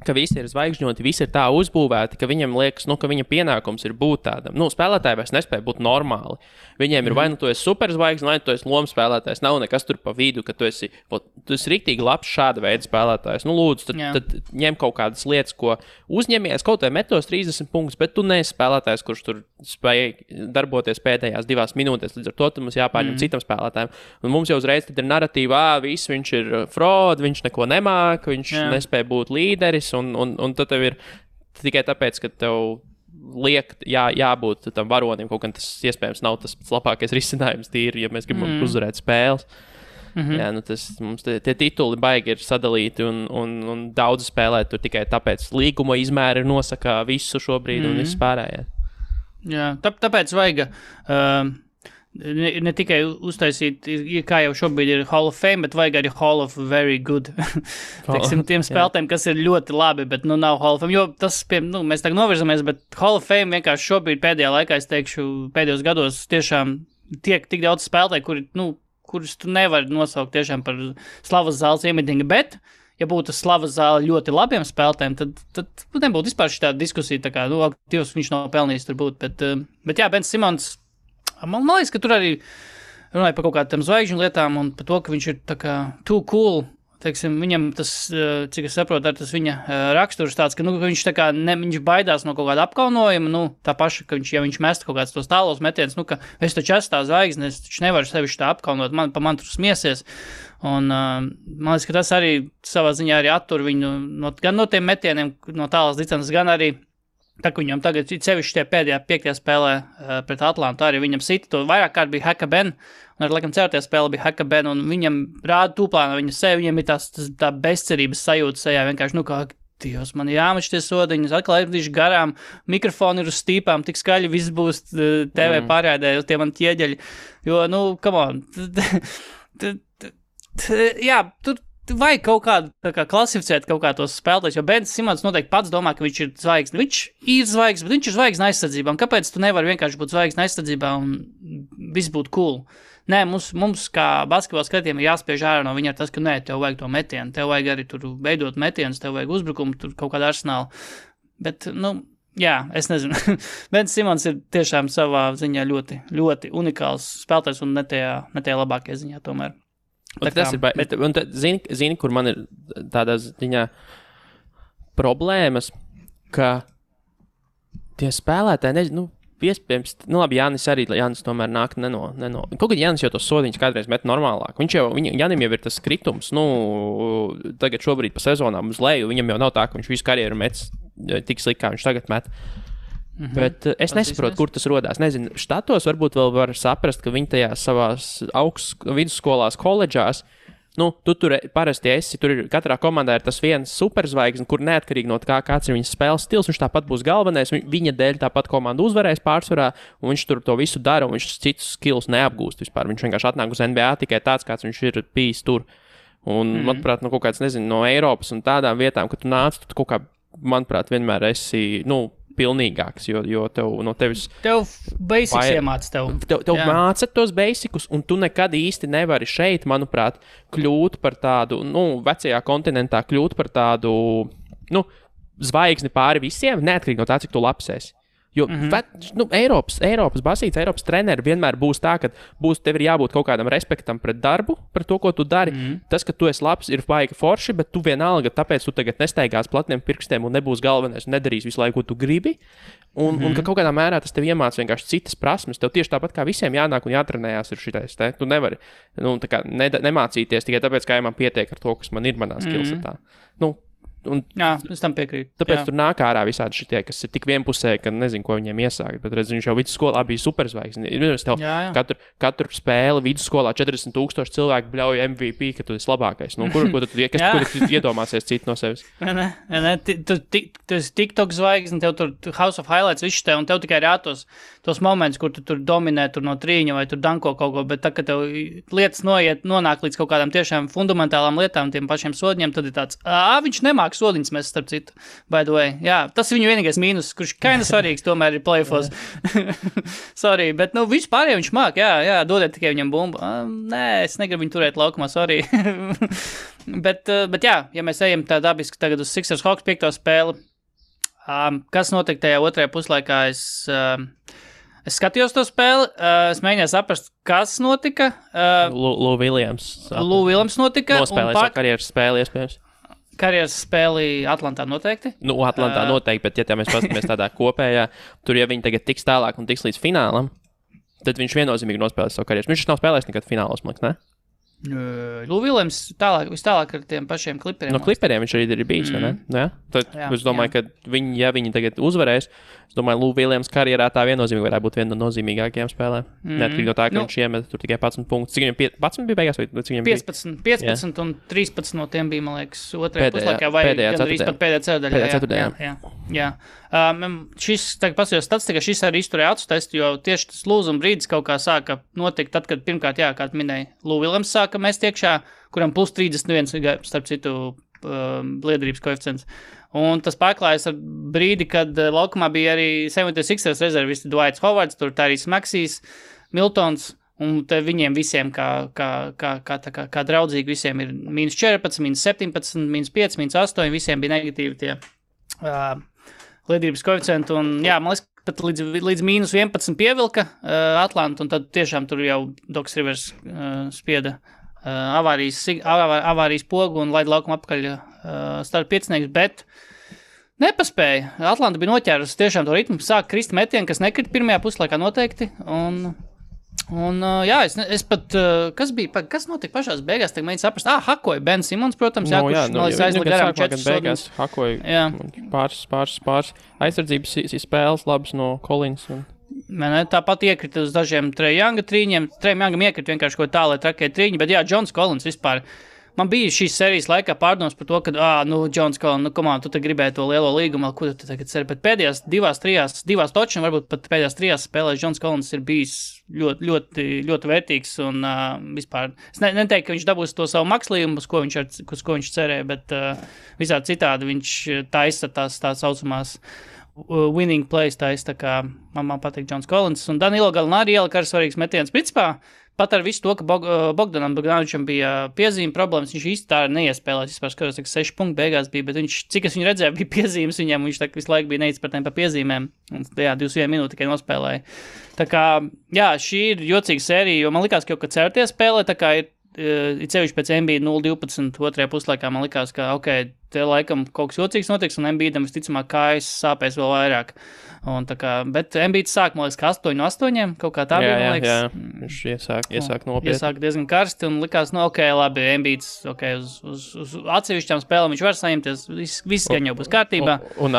Ka visi ir zvaigžņoti, visi ir tā uzbūvēti, ka viņam liekas, ka viņa pienākums ir būt tādam. Spēlētāji vairs nespēja būt normāli. Viņiem ir vai tu esi superzvaigzne, vai tu esi lomas spēlētājs. Nav nekas tur pa vidu, ka tu esi riktīgi labs šāda veida spēlētājs. Lūdzu, tad ņem kaut kādas lietas, ko uzņemies, kaut vai metos 30 punktus, bet tu neesi spēlētājs, kurš tur spēja darboties pēdējās 2 minūtēs. Līdz ar to mums jāpārņem citam spēlētājiem. Un mums jau uzreiz tad ir narratīva, viņš ir fraud, viņš neko nemāk, viņš nespēja būt līderis. Un tad tev ir tikai tāpēc, ka tev liek jābūt tam varonim, kaut gan tas iespējams nav tas labākais risinājums tīri, ja mēs gribam uzvarēt spēles. Mums tie tituli baigi ir sadalīti un daudz spēlē tur tikai tāpēc līguma izmēri nosaka visu šobrīd un viss pārējais. Jā, tāpēc vajag... Ne tikai uztaisīt, kā jau šobrīd ir Hall of Fame, bet vajag arī Hall of Very Good. Teiksim, tiem spēlētājiem, kas ir ļoti labi, bet nav Hall of Fame. Jo tas, mēs tagad novirzamies, bet Hall of Fame vienkārši šobrīd pēdējā laikā, es teikšu, pēdējos gados tiešām tiek tik daudz spēlētāji, kurus tu nevari nosaukt tiešām par slavas zāles iemetinga, bet, ja būtu slavas zāle ļoti labiem spēlētājiem, tad nebūtu vispār šī tāda diskusija, tā kā, Dievs, viņš nav pelnījis tur būt, bet jā, Ben Simons, man liekas, ka tur arī runāja par kaut kādām zvaigžņu lietām un par to, ka viņš ir tā kā too cool. Teiksim, viņam tas, cik es saprotu, ar tas viņa raksturs tāds, ka viņš tā kā viņš baidās no kaut kāda apkaunojuma, tā paša, ka ja viņš mest kaut kāds tos tālos metienus, ka es taču esmu tā zvaigzne, es taču nevaru sevi tā apkaunot, man tur smiesies. Un man liekas, ka tas arī savā ziņā arī attur viņu gan no tiem metieniem, no tālās distances, gan arī tā, ka viņam tagad sevišķi tie pēdējā 5. spēlē pret Atlantu, arī viņam sita to vairāk kārt bija Heka Ben, un arī, laikam, 4. spēle bija Heka Ben, un viņam rāda tūplāna viņa sevi, viņam ir tā bezcerības sajūta sejā, vienkārši, kā Dievs, man jāmač tie sodiņas, atkal aizvedīšu garām, mikrofoni ir uz stīpām, tik skaļi viss būs TV pārēdē, tie man ķieģeļi, jo, come on, jā, tur vajag kaut kādu klasificēt kaut kā tos spēlētājus, jo Bens Simons noteikti pats domā, ka viņš ir zvaigzne. Viņš ir zvaigzne, bet viņš ir zvaigzne aizsardzībā. Un kāpēc tu nevari vienkārši būt zvaigzne aizsardzībā un viss būtu cool? Nē, mums kā basketbola skatiem ir jāspiež ārā no viņa tas, ka nē, tev vajag to metienu, tev vajag arī tur veidot metienus, tev vajag uzbrukumu, tur kaut kādu arsenālu. Bet, jā, es nezinu. Bens Simons ir tiešām savā ziņā ļoti, ļoti unikāls spēlētājs un ne tajā labākajā ziņā tomēr. Zini, kur man ir tādā ziņā problēmas, ka tie spēlētāji, nezinu, iespējams, labi, Jānis tomēr nāk neno. Kaut kad Jānis jau tos sodiņus kādreiz met normālāk. Jānim jau ir tas kritums, tagad šobrīd pa sezonām uz leju, viņam jau nav tā, ka viņš visu karjeru met tik slikti, kā viņš tagad met. Bet es nesaprotu, kur tas rodās. Nezinu, štatos varbūt vēl var saprast, ka viņi tajās savās vidusskolās, koledžās, tu tur parasti esi, tur ir katrā komandā ir tas viens superzvaigzne, kur neatkarīgi no tā, kāds ir viņas spēles stils, viņš tāpat būs galvenais, viņa dēļ tāpat komanda uzvarēs pārsvarā, un viņš tur to visu dara, un viņš citus skills neapgūst vispār. Viņš vienkārši atnāk uz NBA tikai tāds, kāds viņš ir bijis tur. Un, manuprāt, kaut kāds, nezinu, no Eiropas un tādām vietām, ka tu nāc, tu kaut kā, manuprāt, vienmēr esi, pilnīgāks, jo Tev basics iemāca tev māca tos basicus, un tu nekad īsti nevari šeit, manuprāt, kļūt par tādu, vecajā kontinentā kļūt par tādu, zvaigzni pāri visiem, neatkarīgi no tā, cik tu labs esi. Jo Eiropas basīts, Eiropas treneri vienmēr būs tā, ka tev ir jābūt kaut kādam respektam pret darbu, par to, ko tu dari. Tas, ka tu esi labs, ir baigi forši, bet tu vienalga, tāpēc tu tagad nestaigās platniem pirkstiem un nebūs galvenais un nedarīs visu laiku, ko tu gribi. Un ka kaut kādā mērā tas tev iemāc vienkārši citas prasmes. Tev tieši tāpat kā visiem jānāk un jātrenējās ir šitais. Tu nevari nemācīties tikai tāpēc, ka man pietiek ar to, kas man ir manā skillsetā. Jā, es tam piekrītu. Tāpēc tur nāk ārā visādi šitie, kas ir tik vienpusēji, ka nezinu, ko viņiem iesākt. Bet redz, viņš jau vidusskolā bija superzvaigzne. Katru spēli vidusskolā 40,000 cilvēku bļauj MVP, ka tu esi labākais. Kur tu iedomāsies citu no sevis? Ne, tu esi TikTok zvaigzne, tev tur House of Highlights viss te, un tev tikai ir tos momentus, kur tu tur dominē tur no trīņa vai tur danko kaut ko, bet tā, ka tev lietas nonāk līdz kaut kādām tiešām fundamentālām lietām, tiem pašiem sodiņiem, tad ir tāds, viņš nemāk sodiņas mēs starp citu, by the way. Jā, tas ir viņu vienīgais mīnus, kurš kaina svarīgs tomēr ir playoffs. Sorry, bet vispār viņš māk, jā, dodiet tikai viņam bumbu. Nē, es negribu viņu turēt laukumā, sorry. bet jā, ja mēs ejam tā dabiski tagad uz Sixers Hawks 5. spēli, kas notika tajā otrajā puslaikā, es skatījos to spēli, es mēģināju saprast, kas notika. Lou Williams. Lou Williams notika. Nospēlēja savu karjeras spēli, iespējams. Karjeras spēli Atlantā noteikti? Atlantā noteikti, bet ja mēs paskatāmies tādā kopējā, tur ja viņi tagad tiks tālāk un tiks līdz finālam, tad viņš viennozīmīgi nospēlēs savu karjeru. Viņš nav spēlējis nekad finālos, man liekas, ne? Lou Williams vistālāk ar tiem pašiem kliperiem. No kliperiem viņš arī ir bijis, vai ne? Jā? Tad es domāju, ka viņi tagad uzvarēs, es domāju, Lou Williams karjerā tā viennozīmīgi varētu būt viena no nozīmīgākajām spēlēm. Neatkarīgi no tā, ka viņš iemet tur tikai 11 punktus. Cik viņam 11 bija beigās? Vai cik viņam 15 un 13 no tiem bija, man liekas, otrajā puslaikā vai gandrīz pat pēdējā ceturdaļā. Jā. Šis, tagad pasījos statistika, šis arī izturēja acu testu, jo tieši tas lūzuma brīdis kaut kā sāka notikt tad, kad pirmkārt, kā minēja, Lou Williams sāka mest iekšā, kuram plus 31, starp citu, liederības koeficients. Un tas pārklājas ar brīdi, kad laukumā bija arī 76ers rezervisti Dwights Howards, tur Tyrese Maxeys, Miltons, un te viņiem visiem, kā draudzīgi, visiem ir -14, -17, -5, -8, visiem bija negatīvi tie liederības koeficienti, un jā, man liekas, pat līdz -11 pievilka Atlanta, un tad tiešām tur jau Docs Rivers spieda avārijas pogu un laida laukumu apkaļ starp piecinieks, bet nepaspēja. Atlanta bija noķērusi tiešām to ritmu, sāk krist metieni, kas nekrita pirmajā puslaikā noteikti, un jā, es pat, kas notika pašās beigās, tagad mēģinu saprast, hakoja Ben Simons, protams, kurš aizlika garām 4 sodus. Hakoja pāris aizsardzības spēles labas no Collins. Tāpat iekrita uz dažiem Trae Younga trīņiem. Trae Youngam iekrita vienkārši ko tā, lai trakēja trīņi, bet jā, Johns Collins vispār. man bija šīs sērijas laikā pārdomas par to, ka, Džons Collins, tu te gribēji to lielo līgumu, ko tu tagad ceri, bet pēdējās divās točina, varbūt pat pēdējās 3 spēlēs Džons Collins ir bijis ļoti, ļoti, ļoti vērtīgs un vispār, es neteiktu, ka viņš dabūs to savu makslījumu, uz ko viņš cerēja, bet visādi citādi viņš taisa tās saucamās winning plays taisa, tā kā man patīk Džons Collins, un Danilo Gallinari ielika ar svarīgs metiens. Principā, pat ar visu to, ka Bogdanam Bogdanovičam bija piezīme problēmas, viņš īsti tā neiespēlēs, vispār skatos, 6 punkti beigās bija, bet viņš, cik es viņu redzēju, bija piezīmes viņam, viņš tā visu laiku bija neizpratnēm pa piezīmēm, un 21 minūti tikai nospēlēja. Tā kā, jā, šī ir jocīga sērija, jo man likās, ka jau, kad certies spēlē, tā kā ir cevišķi pēc Embiida 0-12 otrajā puslaikā, man likās, ka, te laikam kaut kas jocīgs notiks, un Embiidam visticamāk kājas sāpēs vēl vairāk. Un tā kā, bet Embiids sāk, man liekas, ka 8-8, kaut kā tā bija, man liekas. Jā, viņš iesāk nopietni. Iesāk diezgan karsti, un likās, labi, Embiids, uz atsevišķām spēlēm viņš var saņemties, viss gan jau būs kārtībā. Un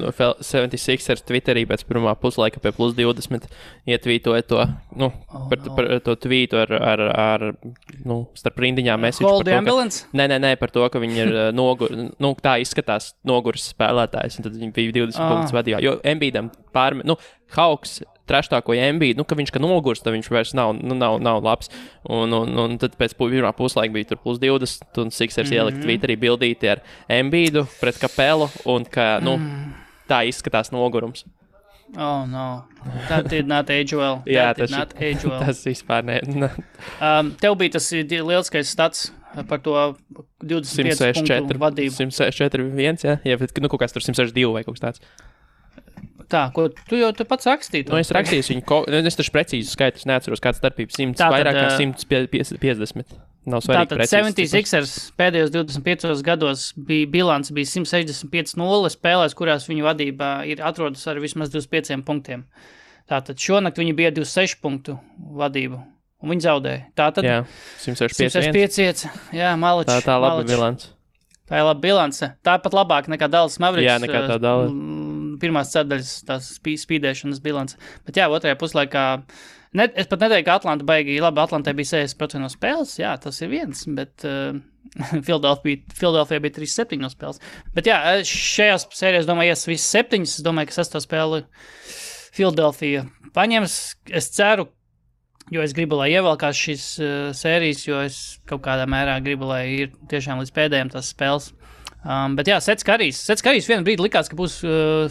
76ers Twitterī pēc pirmā puslaika pie plus 20 ietvītoja to, par to tvītu ar starp rindiņām message. Call the ambulance? Nē, par to, ka viņi ir tā izskatās noguris spēlētājs, un tad viņi bija 20 punktus vadījā. Jo Embiidam Hawks treštākoja Embiidu, ka viņš nogurs, tad viņš vairs nav labs. Un tad pēc pirmā puslaika bija tur plus 20, un Sixers ielikt Twitterī bildīti ar Embiidu pret Kapelu, un ka, tā izskatās nogurums. Oh, no. That did not age well. Tas vispār ne. Tev bija tas lieliskais stats par to 25 punktu vadību. 164-1, jā, kaut kāds tur 162 vai kaut kas tāds. Tā, ko tu jau pats rakstīji? Es rakstīju viņu, es taču precīzi skaitus neatceros, kāds starpības 100, vairāk kā 150. Nav svarīgi precīzi. Tātad 76ers pēdējos 25 gados bilants bija 165-0 spēlēs, kurās viņu vadībā atrodas ar vismaz 25 punktiem. Tātad šonakt viņi bija 26 punktu vadību, un viņi zaudēja. Tātad jā, 165. Jā, maličs. Tā laba bilance. Tā ir laba bilance. Tā pat labāk nekā Dallas Mavericks. Jā, nekā tā Dallas. Pirmās ceturdaļas tās spīdēšanas bilance. Bet jā, otrajā puslaikā, es pat neteiktu, ka Atlanta baigi labi, Atlantai bija 60% no spēles, jā, tas ir viens, bet Philadelphia bija 37 no spēles. Bet jā, šajās sērijās, domāju, visas 7, es domāju, ka 6. spēli Philadelphia paņems. Es ceru, jo es gribu, lai ievelkās šīs sērijas, jo es kaut kādā mērā gribu, lai ir tiešām līdz pēdējiem tās spēles. Bet jā, Sets Karijs vienu brīdi likās, ka būs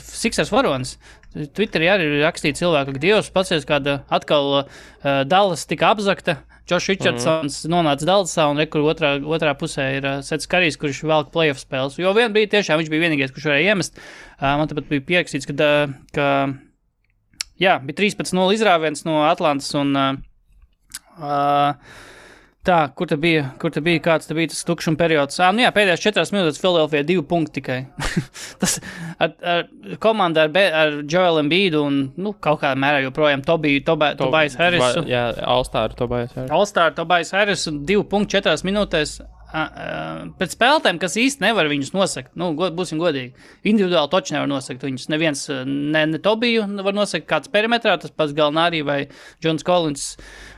Sixers varonis. Twitterī arī rakstīja cilvēku, ka Dievs pacies, kāda atkal Dallas tika apzakta. Josh Richardsons nonāca Dallasā un kur otrā pusē ir Sets Karijs, kurš velk playoff spēles. Jo vienu brīdi tiešām viņš bija vienīgais, kurš varēja iemest. Man tāpat bija pierakstīts, ka jā, bija 13-0 izrāviens no Atlantas un tā, kur te bija, kāds te bija tas tukšuma periods? Jā, pēdējās 4 minūtes Philadelphia 2 punkti tikai. Tas ar komandu ar Joel Embiidu un, kaut kādā mērā joprojām Tobias Harris. Jā, All-Star Tobias Harris un 2 punkti 4 minūtēs. Pēc spēlētēm, kas īsti nevar viņus nosakt, būsim godīgi. Individuāli toči nevar nosakt viņus. Neviens, ne Tobiju var nosakt kāds perimetrā, tas pats Gallinari vai Džons Collins,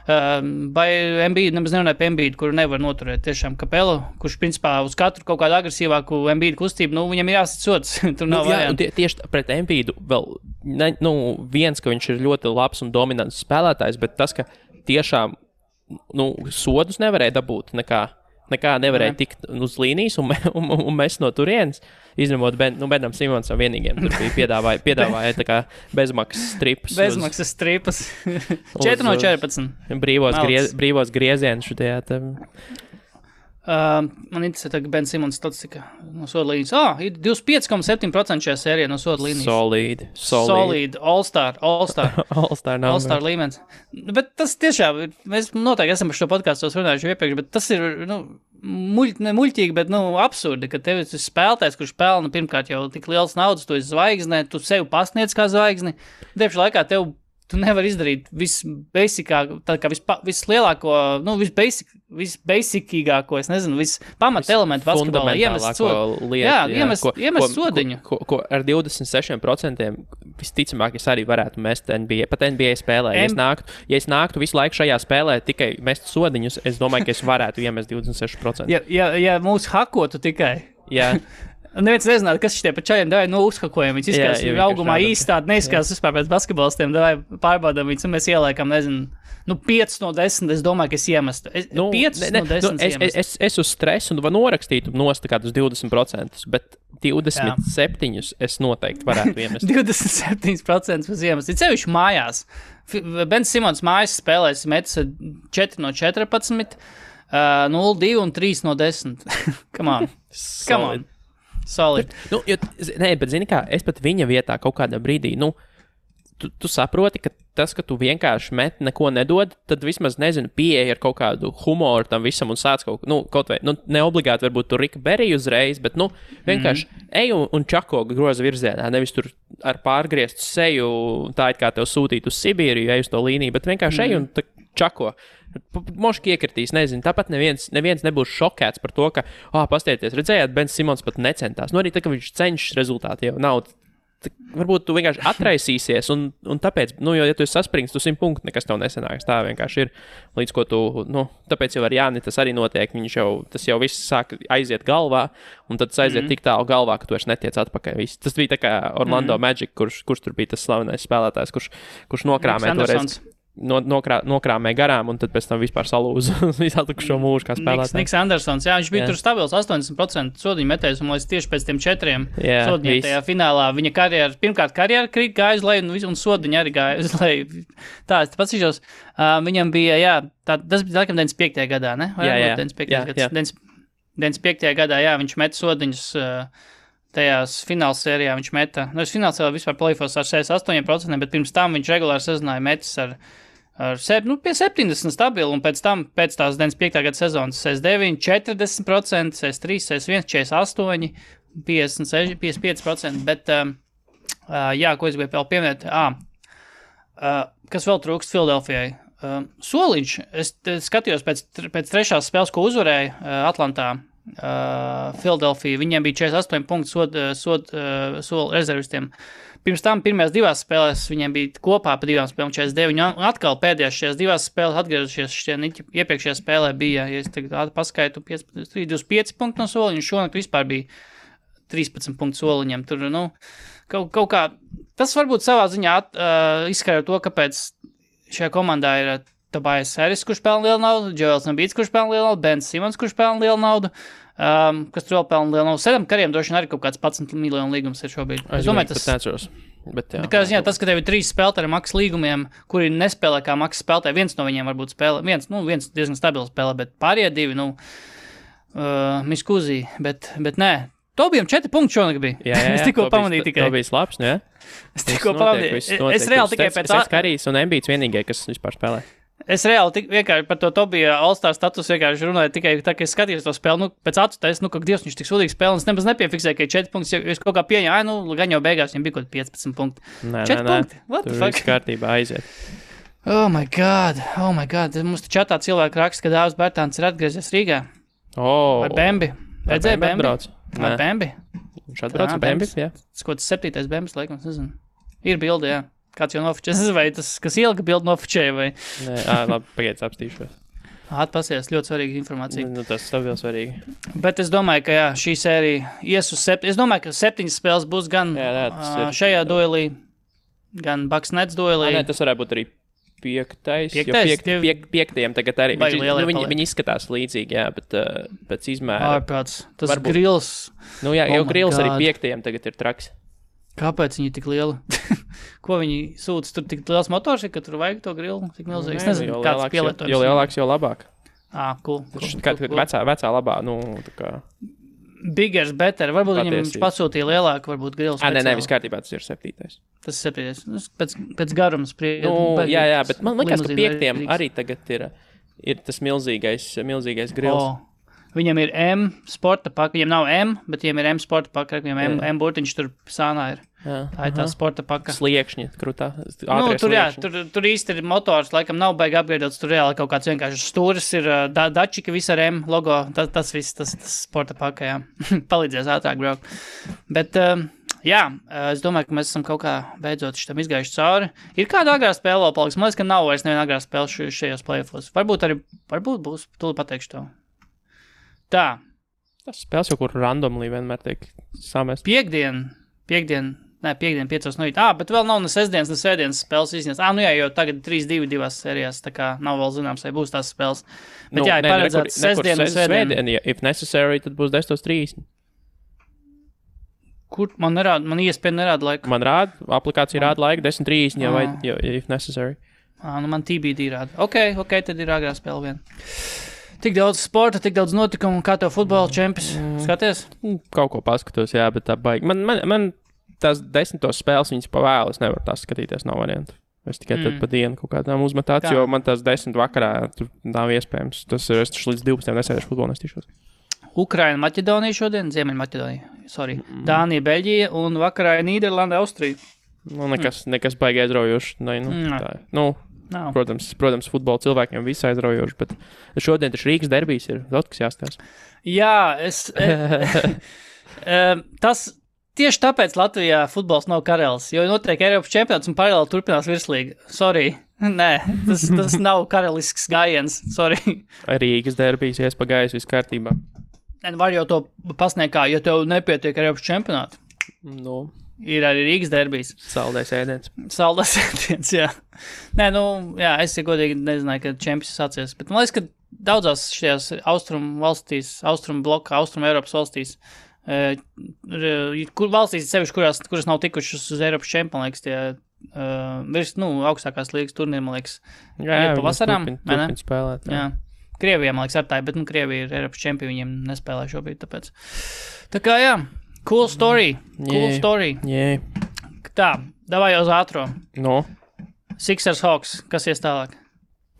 vai Embiidu, nemaz nerunāja par Embiidu, kuru nevar noturēt. Tiešām Kapelu, kurš principā uz katru kaut kādu agresīvāku Embiidu kustību, viņam ir jāsit sods. Tur nav variantu. Tieši pret Embiidu vēl, viens, ka viņš ir ļoti labs un dominants spēlētājs, bet tas, ka tiešām, sodus nevarēja dabūt nekā nevarēja tikt uz līnijas un mest no turienes, izņemot Benam Simonsam vienīgiem. Tur bija piedāvāja tā kā bezmaksas stripas. Bezmaksas stripas. 4 no 14. Brīvos griezienus šajā. Man interesē, ka Ben Simons statistika no soda līnijas. Ir 25,7% šajā sērijā no soda līnijas. Solid. All-Star līmenis. Bet tas tiešām, mēs noteikti esam par šo podkāstos runājuši iepriekš, bet tas ir, muļķīgi, bet, absurdi, ka tev ir spēlētājs, kurš pelna pirmkārt jau tik liels naudas, tu esi zvaigzne, tu sevi pasniedz kā zvaigzni. Diepšu laikā tev tu nevari izdarīt visbasicāko, tā kā vislielāko, nu, visbasicīgāko, es nezinu, vispamat elementu basketbolā iemest sodiņu. Ko ar 26% visticamāk es arī varētu mest NBA, pat NBA spēlē. Ja es nāktu visu laiku šajā spēlē tikai mest sodiņus, es domāju, ka es varētu iemest 26%. Ja mūs hakotu tikai. Jā. Neviens nezinātu, kas šitie pa čajiem davai, uzhakojam. Viņus izskatās augumā īsti tādi, neizskatās vispār pēc basketbolistiem, davai pārbaudam viņus, un mēs ieliekam, nezinu, 5 no 10, es domāju, ka es iemestu. 5 no 10 iemestu. Es uz stresu norakstītu nost kādus 20%, bet 27 es noteikti varētu iemest. 27% uz iemest. Ir sevišķi mājās. Bens Simons mājas spēlēs metas 4 no 14, 0, 2 un 3 no 10. Come on. Solid. Bet zini kā, es pat viņa vietā kaut kādā brīdī, tu saproti, ka tas, ka tu vienkārši met neko nedod, tad vismaz, nezinu, pieeja ar kaut kādu humoru tam visam un sāc kaut vai, ne obligāti varbūt tur Rika Berija uzreiz, bet, vienkārši ej un čako groza virzienā, nevis tur ar pārgrieztu seju, tā it kā tev sūtīt uz Sibīriju, ej uz to līniju, bet vienkārši ej un čako. Moški iekritīs, nezinu, tāpat neviens nebūs šokēts par to, ka, pastieties, redzējāt, Bens Simons pat necentās. Arī tā, ka viņš cenšas rezultāti jau nav. Varbūt tu vienkārši atraisīsies, un tāpēc, ja tu esi saspringts, tu 100 punktu nekas tev nesanāks. Tā vienkārši ir, līdz ko tu, tāpēc jau ar Jāni tas arī notiek, tas jau viss sāk aiziet galvā, un tad tas aiziet tik tālu galvā, ka tu vairs netiec atpakaļ. Tas bija tā kā Orlando Magic, kurš tur bija tas slavenais spēlētājs, kurš nokrāmē toreiz. Nokrāmē garām, un tad pēc tam vispār salūza visu atlikušo mūžu kā spēlētājs. Niks Andersons, viņš bija tur stabils 80% sodiņu metējs, un līdz tieši pēc tiem 4 sodiņiem tajā finālā viņa karjera gāja uz leju, un sodiņa arī gāja uz leju. Tā, es pats izšos, viņam bija, tas bija laikam 95. gadā, ne? Jā. 95. gadā, viņš met sodiņus tajās fināls sērijā viņš meta. Fināls sērijā vispār play-offs ar 68%, bet pirms tam viņš regulāri sezināja metis ar pie 70 stabilu, un pēc tās 95. gada sezonas 69, 40%, 63, 61, 48, 56, 55%, bet, ko es gribēju vēl pieminēt, kas vēl trūkst Filadelfijai? Soliņš, es skatījos pēc trešās spēles, ko uzvarēja Atlantā, Filadelfija, viņiem bija 48 punktu soli rezervistiem. Pirms tam pirmajās 2 spēlēs viņiem bija kopā pa 2 spēlēm 49, un atkal pēdējās šajās 2 spēlēs atgriezušies iepriekšējā spēlē bija, ja es tagad paskaitu, 25 punktu no soliņa, un šonakt vispār bija 13 punktu soliņiem. Tur, kaut kā, tas varbūt savā ziņā izskaidro to, kāpēc šajā komandā ir Tobias Harris, kurš pelna lielu naudu, Joels Embiids, kurš pelna lielu naudu, Bens Simons, kurš pelna lielu naudu, kas tur vēl pelna lielu naudu. Sedam kariem droši vien arī kaut kāds 11 miljonu līgums ir šobrīd. Es domāju, tas... tas, ka tev ir 3 spēlētāji ar maksas līgumiem, kuri nespēlē kā maksas spēlētāji, viens no viņiem varbūt spēlē, viens diezgan stabils spēlē, bet pārējie 2, miskuzī, bet nē. Tobijam 4 punkti šonakt bija. Jā, es tikko pamanīju tikai. Tobijs labs, ne? Es tikko pamanīju. Es reāli tikai pēc... Karijs un Embiids vienīgie, kas vispār spēlē. Es reāli vienkārši par to Tobija All-Star status vienkārši runāju tikai tā, ka es skatījos to spēli, pēc acu taisa, ka Dievs, viņš tik sūdīgi spēlē, un es nemaz nepiefiksēju, ka ir 4 punkti, jo es kaut kā pieņēmu, gan jau beigās viņam bija kaut 15 punkti. 4 punkti? What the fuck? Tur viss kārtībā aiziet. Oh my god. Mums te čatā cilvēki raksta, ka Dāvs Bērtāns ir atgriezies Rīgā. Vai Bembi? Redzēja Bembi? Vai Bembi? Viņš atbrauc ar Bembi, jā. Tas kaut 7. Bembis, laikam, nezinu. Ir bildi, jā. Kāds jau nofočē, vai tas, kas ielika bildi nofočēja, vai? Nē, labi, pagaids apstīšos. Atpasies, ļoti svarīga informācija. Tas stabils svarīgi. Bet es domāju, ka šī sērija ies uz 7. Es domāju, ka 7 spēles būs gan šajā duelī, gan Bucks Nets duelī. Nē, tas varētu būt arī 5. Piektajam tagad arī. Viņi izskatās līdzīgi, jā, bet pēc izmēra. Ārprāts, tas grils. Jau grils arī 5. tagad ir traks. Kāpēc viņi tik lieli? Ko viņi sūta? Tur tik liels motors, ka tur vajag to grilu? Tik milzīgs. Es nezinu, kāds pielietojums. Jo lielāks, jo labāk. Cool. Vecā labā, tā kā... Biggers, better. Varbūt viņam pasūtīja lielāku, varbūt grilu speciāli. Nē, viss kārtībā, tas ir 7. Tas ir 7. Pēc garuma spriedzi. Jā, bet man liekas, ka 5. arī tagad ir tas milzīgais grils. Viņam ir M sporta paka, viņam nav M, bet viņam ir M sporta paka, viņam M burtiņš tur sānā ir. Tā ir tā sporta paka. Sliekšņi, krūtā. Tur īsti ir motors, laikam nav baigi apgaidots, tur reāli kaut kāds vienkārši stūris ir dačika, visa ar M logo, tas viss, tas sporta paka, jā. Palīdzēs ātrāk braukt. Bet, es domāju, ka mēs esam kaut kā beidzot šitam izgājuši cauri. Ir kāda agrā spēle vēl paliks? Man liekas, ka nav vairs neviena agrā spēle šajos playoffos. Varbūt būs, tūlīt pateikšu to. Tā. Tas spēles jau kur randomly vienmēr tiek samest. Piekdien 5 no rīta. Bet vēl nav ne sestdienas, ne svētdienas spēles izņemts. Jo tagad 3-2 divās sērijās, tā kā nav vēl zināms, vai būs tās spēles. Bet ir paredzēts sestdiena un svētdiena. If necessary, tad būs 10:30. Kur man nerāda? Man iespēja nerāda laiku. Man rāda, aplikācija rāda laiku 10:30, jau if necessary. Man TBD rāda. Ok, tad ir agrā spēle vien. Tik daudz sporta, tik daudz notikumu, kā tev futbola čempis. Skaties? Kaut ko paskatos, jā, bet tā baigi. Man tās 10 spēles, viņas pavēlu, es nevaru tās skatīties, nav variantu. Es tikai tad pa dienu kaut kādām uzmetāts, jo man tās 10 vakarā tur nav iespējams. Tas ir, es līdz 12 nesēdēšu futbolu nestīšos. Ukraina, Maķedonija šodien, Ziemeļmaķedonija, Dānija, Beļģija un vakarā Nīderlanda, Austrija. Nekas baigi aizraujoši. Protams, futbola cilvēkiem viss aizraujoši, bet šodien taču Rīgas derbijs ir daudz, kas jāstās. Jā, tas tieši tāpēc Latvijā futbols nav karalis, jo notiek Eiropas čempionāts un paralēli turpinās virslīga. Sorry. Nē, tas nav karalisks gājiens. Sorry. Rīgas derbijs iespagājis viss kārtībā. Var jau to pasniegt kā, ja tev nepietiek Eiropas čempionātu. Ir arī Rīgas derbijs. Saldais ēdiens. Saldais ēdiens, jā. Nē, es godīgi nezināju, ka čempions sācies, bet man liekas, ka daudzās šajās austrumu valstīs, austrumu bloka, austrumu Eiropas valstīs, kur valstīs sevišķi, kuras nav tikušas uz Eiropas čempionu, liekas, tie augstākās līgas turnīri, man liekas, jā, pavasarām. Turpin spēlēt. Jā. Krievijā, man liekas, ar tā, bet Krievija ir Eiropas čempioni, viņiem nespēlē šobrīd, tāpēc. Tā kā, jā, cool story. Yeah. Tā, davai uz ātro. Sixers Hawks, kas ies tālāk?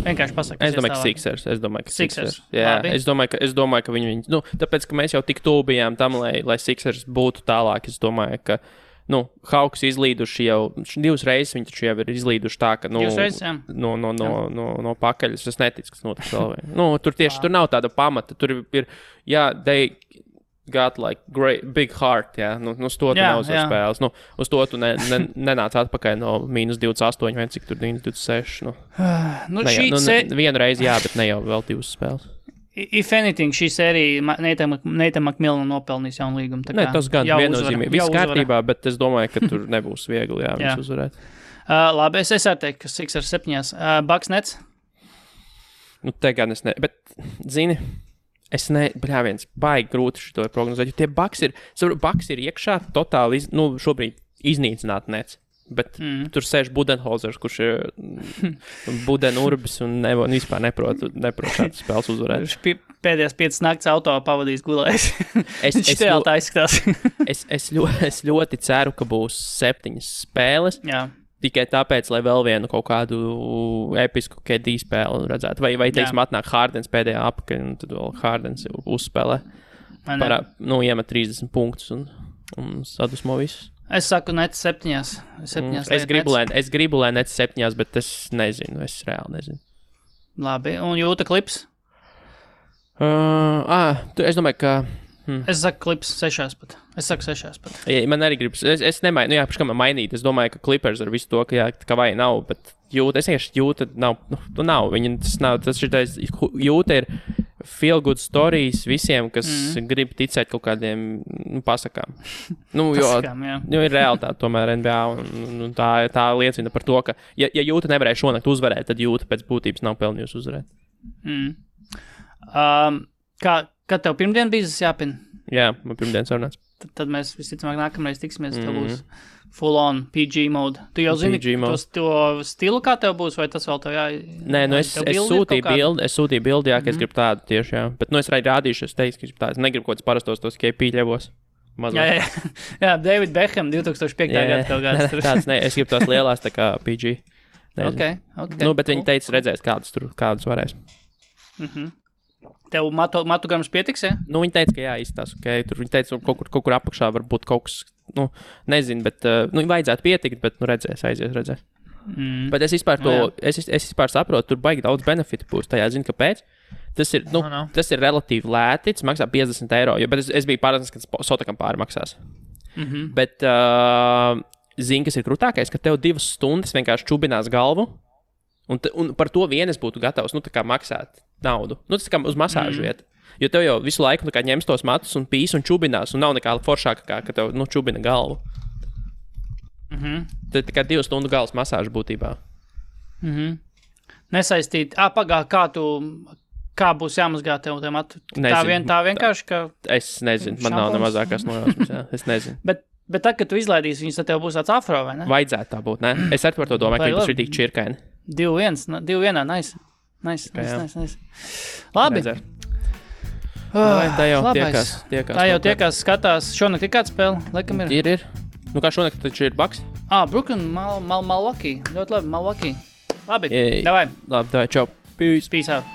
Vienkārši pasaka, Es domāju, ka Sixers. Jā, Labi. es domāju, ka viņi, tāpēc, ka mēs jau tik tuvu bijām tam, lai Sixers būtu tālāk, es domāju, ka, Hawks izlīduši jau, 2 reizes viņi taču jau ir izlīduši tā, ka, 2 reizes, jā. no pakaļas, es neticu, kas notiks vēl. Tur tieši, tur nav tāda pamata, tur ir, they got like big heart, jā, uz to tu neuzvar spēles, uz to tu nenāc atpakaļ no -28, vai cik tur 26, vienu reizi, jā, bet ne jau vēl 2 spēles. If anything, šī sērija Nathan McMillan nopelnīs jaunu līgumu. Nē, tas gan viennozīmīgi. Viss kārtībā, bet es domāju, ka tur nebūs viegli, viņus uzvarēt. Labi, es arī teiktu, ka Sixers 7. Bucks Nets? Te gan es ne, bet, zini, viens baigi grūti šito prognozēt, jo tie Bucks ir iekšā totāli, šobrīd iznīcināt Nets. Bet tur sēž Budenholzers, kurš ir Budenurbis un vispār neprot šādas spēles uzvarēt. Pēdējās 5 nakts auto pavadījis gulējis. Viņš tā izskatās. Es ļoti ceru, ka būs 7 spēles. Jā. Tikai tāpēc, lai vēl vienu kaut kādu episku KD spēli redzētu. Vai teiksim, atnāk Hardens pēdējā apakaļ, un tad vēl Hardens uzspēlē. Iemet 30 punktus un sadusmo visus. Es saku, Nets 7. Es gribu, lai Nets 7, bet es nezinu, es reāli nezinu. Labi, un Jūta Klips? Es domāju, ka... Es saku Klips 6 pat. Man arī gribas, es nemaiņu, kā man mainīt, es domāju, ka Clippers ar visu to, ka vai nav, bet Jūta, Jūta nav, Jūta ir feel good stories visiem, kas grib ticēt kaut kādiem pasakām. Jo ir realitāte tomēr NBA, un tā liecina par to, ka, ja Jūta nevarēja šonakt uzvarēt, tad Jūta pēc būtības nav pelnījusi uzvarēt. Kad tev pirmdien bija jāpina? Jā, man pirmdien sarunāts. Tad mēs visticamāk nākamreiz tiksimies, tev būs full on PG mode. Tu jau zini to stilu, kā tev būs, vai tas vēl tev Nē, es sūtīju bildi, ka es gribu tādu tieši, jā. Bet es arī rādīšu, es teicu, ka gribu tādu. Es negribu kaut kāds parastos tos KP ļevos. Jā, David Beckham 2005. Gada tev gads. Tāds, es gribu tās lielās tā kā PG. Okay. Bet viņi teica, redzēs, kādas varēs. Tev matu grams pietiks, ja? Nu, viņi teica, ka jā, izstās, ok. Tur viņi teica, kaut kur apakšā var būt kaut kas, nu, nezinu, bet, vajadzētu pietikt, bet, redzēs. Bet es vispār es vispār saprotu, tur baigi daudz benefitu būs. Tajā zinu, kāpēc. Tas ir, tas ir relatīvi lēti, tas maksā 50 eiro, bet es biju pārliecināts, ka Sotakam pāri maksās. Bet, zini, kas ir krūtākais, ka tev 2 stundas vienkārši čubinās galvu, un par to vien es būtu gatavs, tā kā maksāt naudu. Tas kā uz masāžu vieta. Jo tev jau visu laiku ņems tos matus un pīs un čubinās, un nav nekā foršāka, ka tev, čubina galvu. Tad tikai 2 stundu galvas masāža būtībā. Nesaistīt. Kā būs jāmazgā tev matu? Tā vienkārši, ka... Es nezinu, man nav ne mazākās nojausmas, jā. Es nezinu. Bet tad, kad tu izlaidīsi viņus, tad tev būs tāds afro, vai ne? Vajadzētu tā būt, ne? Es arī par to domāju, ka viņi ir tik čirkaini. 2-1, nice. Labi. Tā jau tiekās. Tā jau tiekās, skatās. Šonakt ir kāds spēle? Laikam ir. Ir. Kā šonakt taču ir Bucks? Brooklyn, Milwaukee. Ļoti labi, Milwaukee. Labi, davai, čau. Peace out.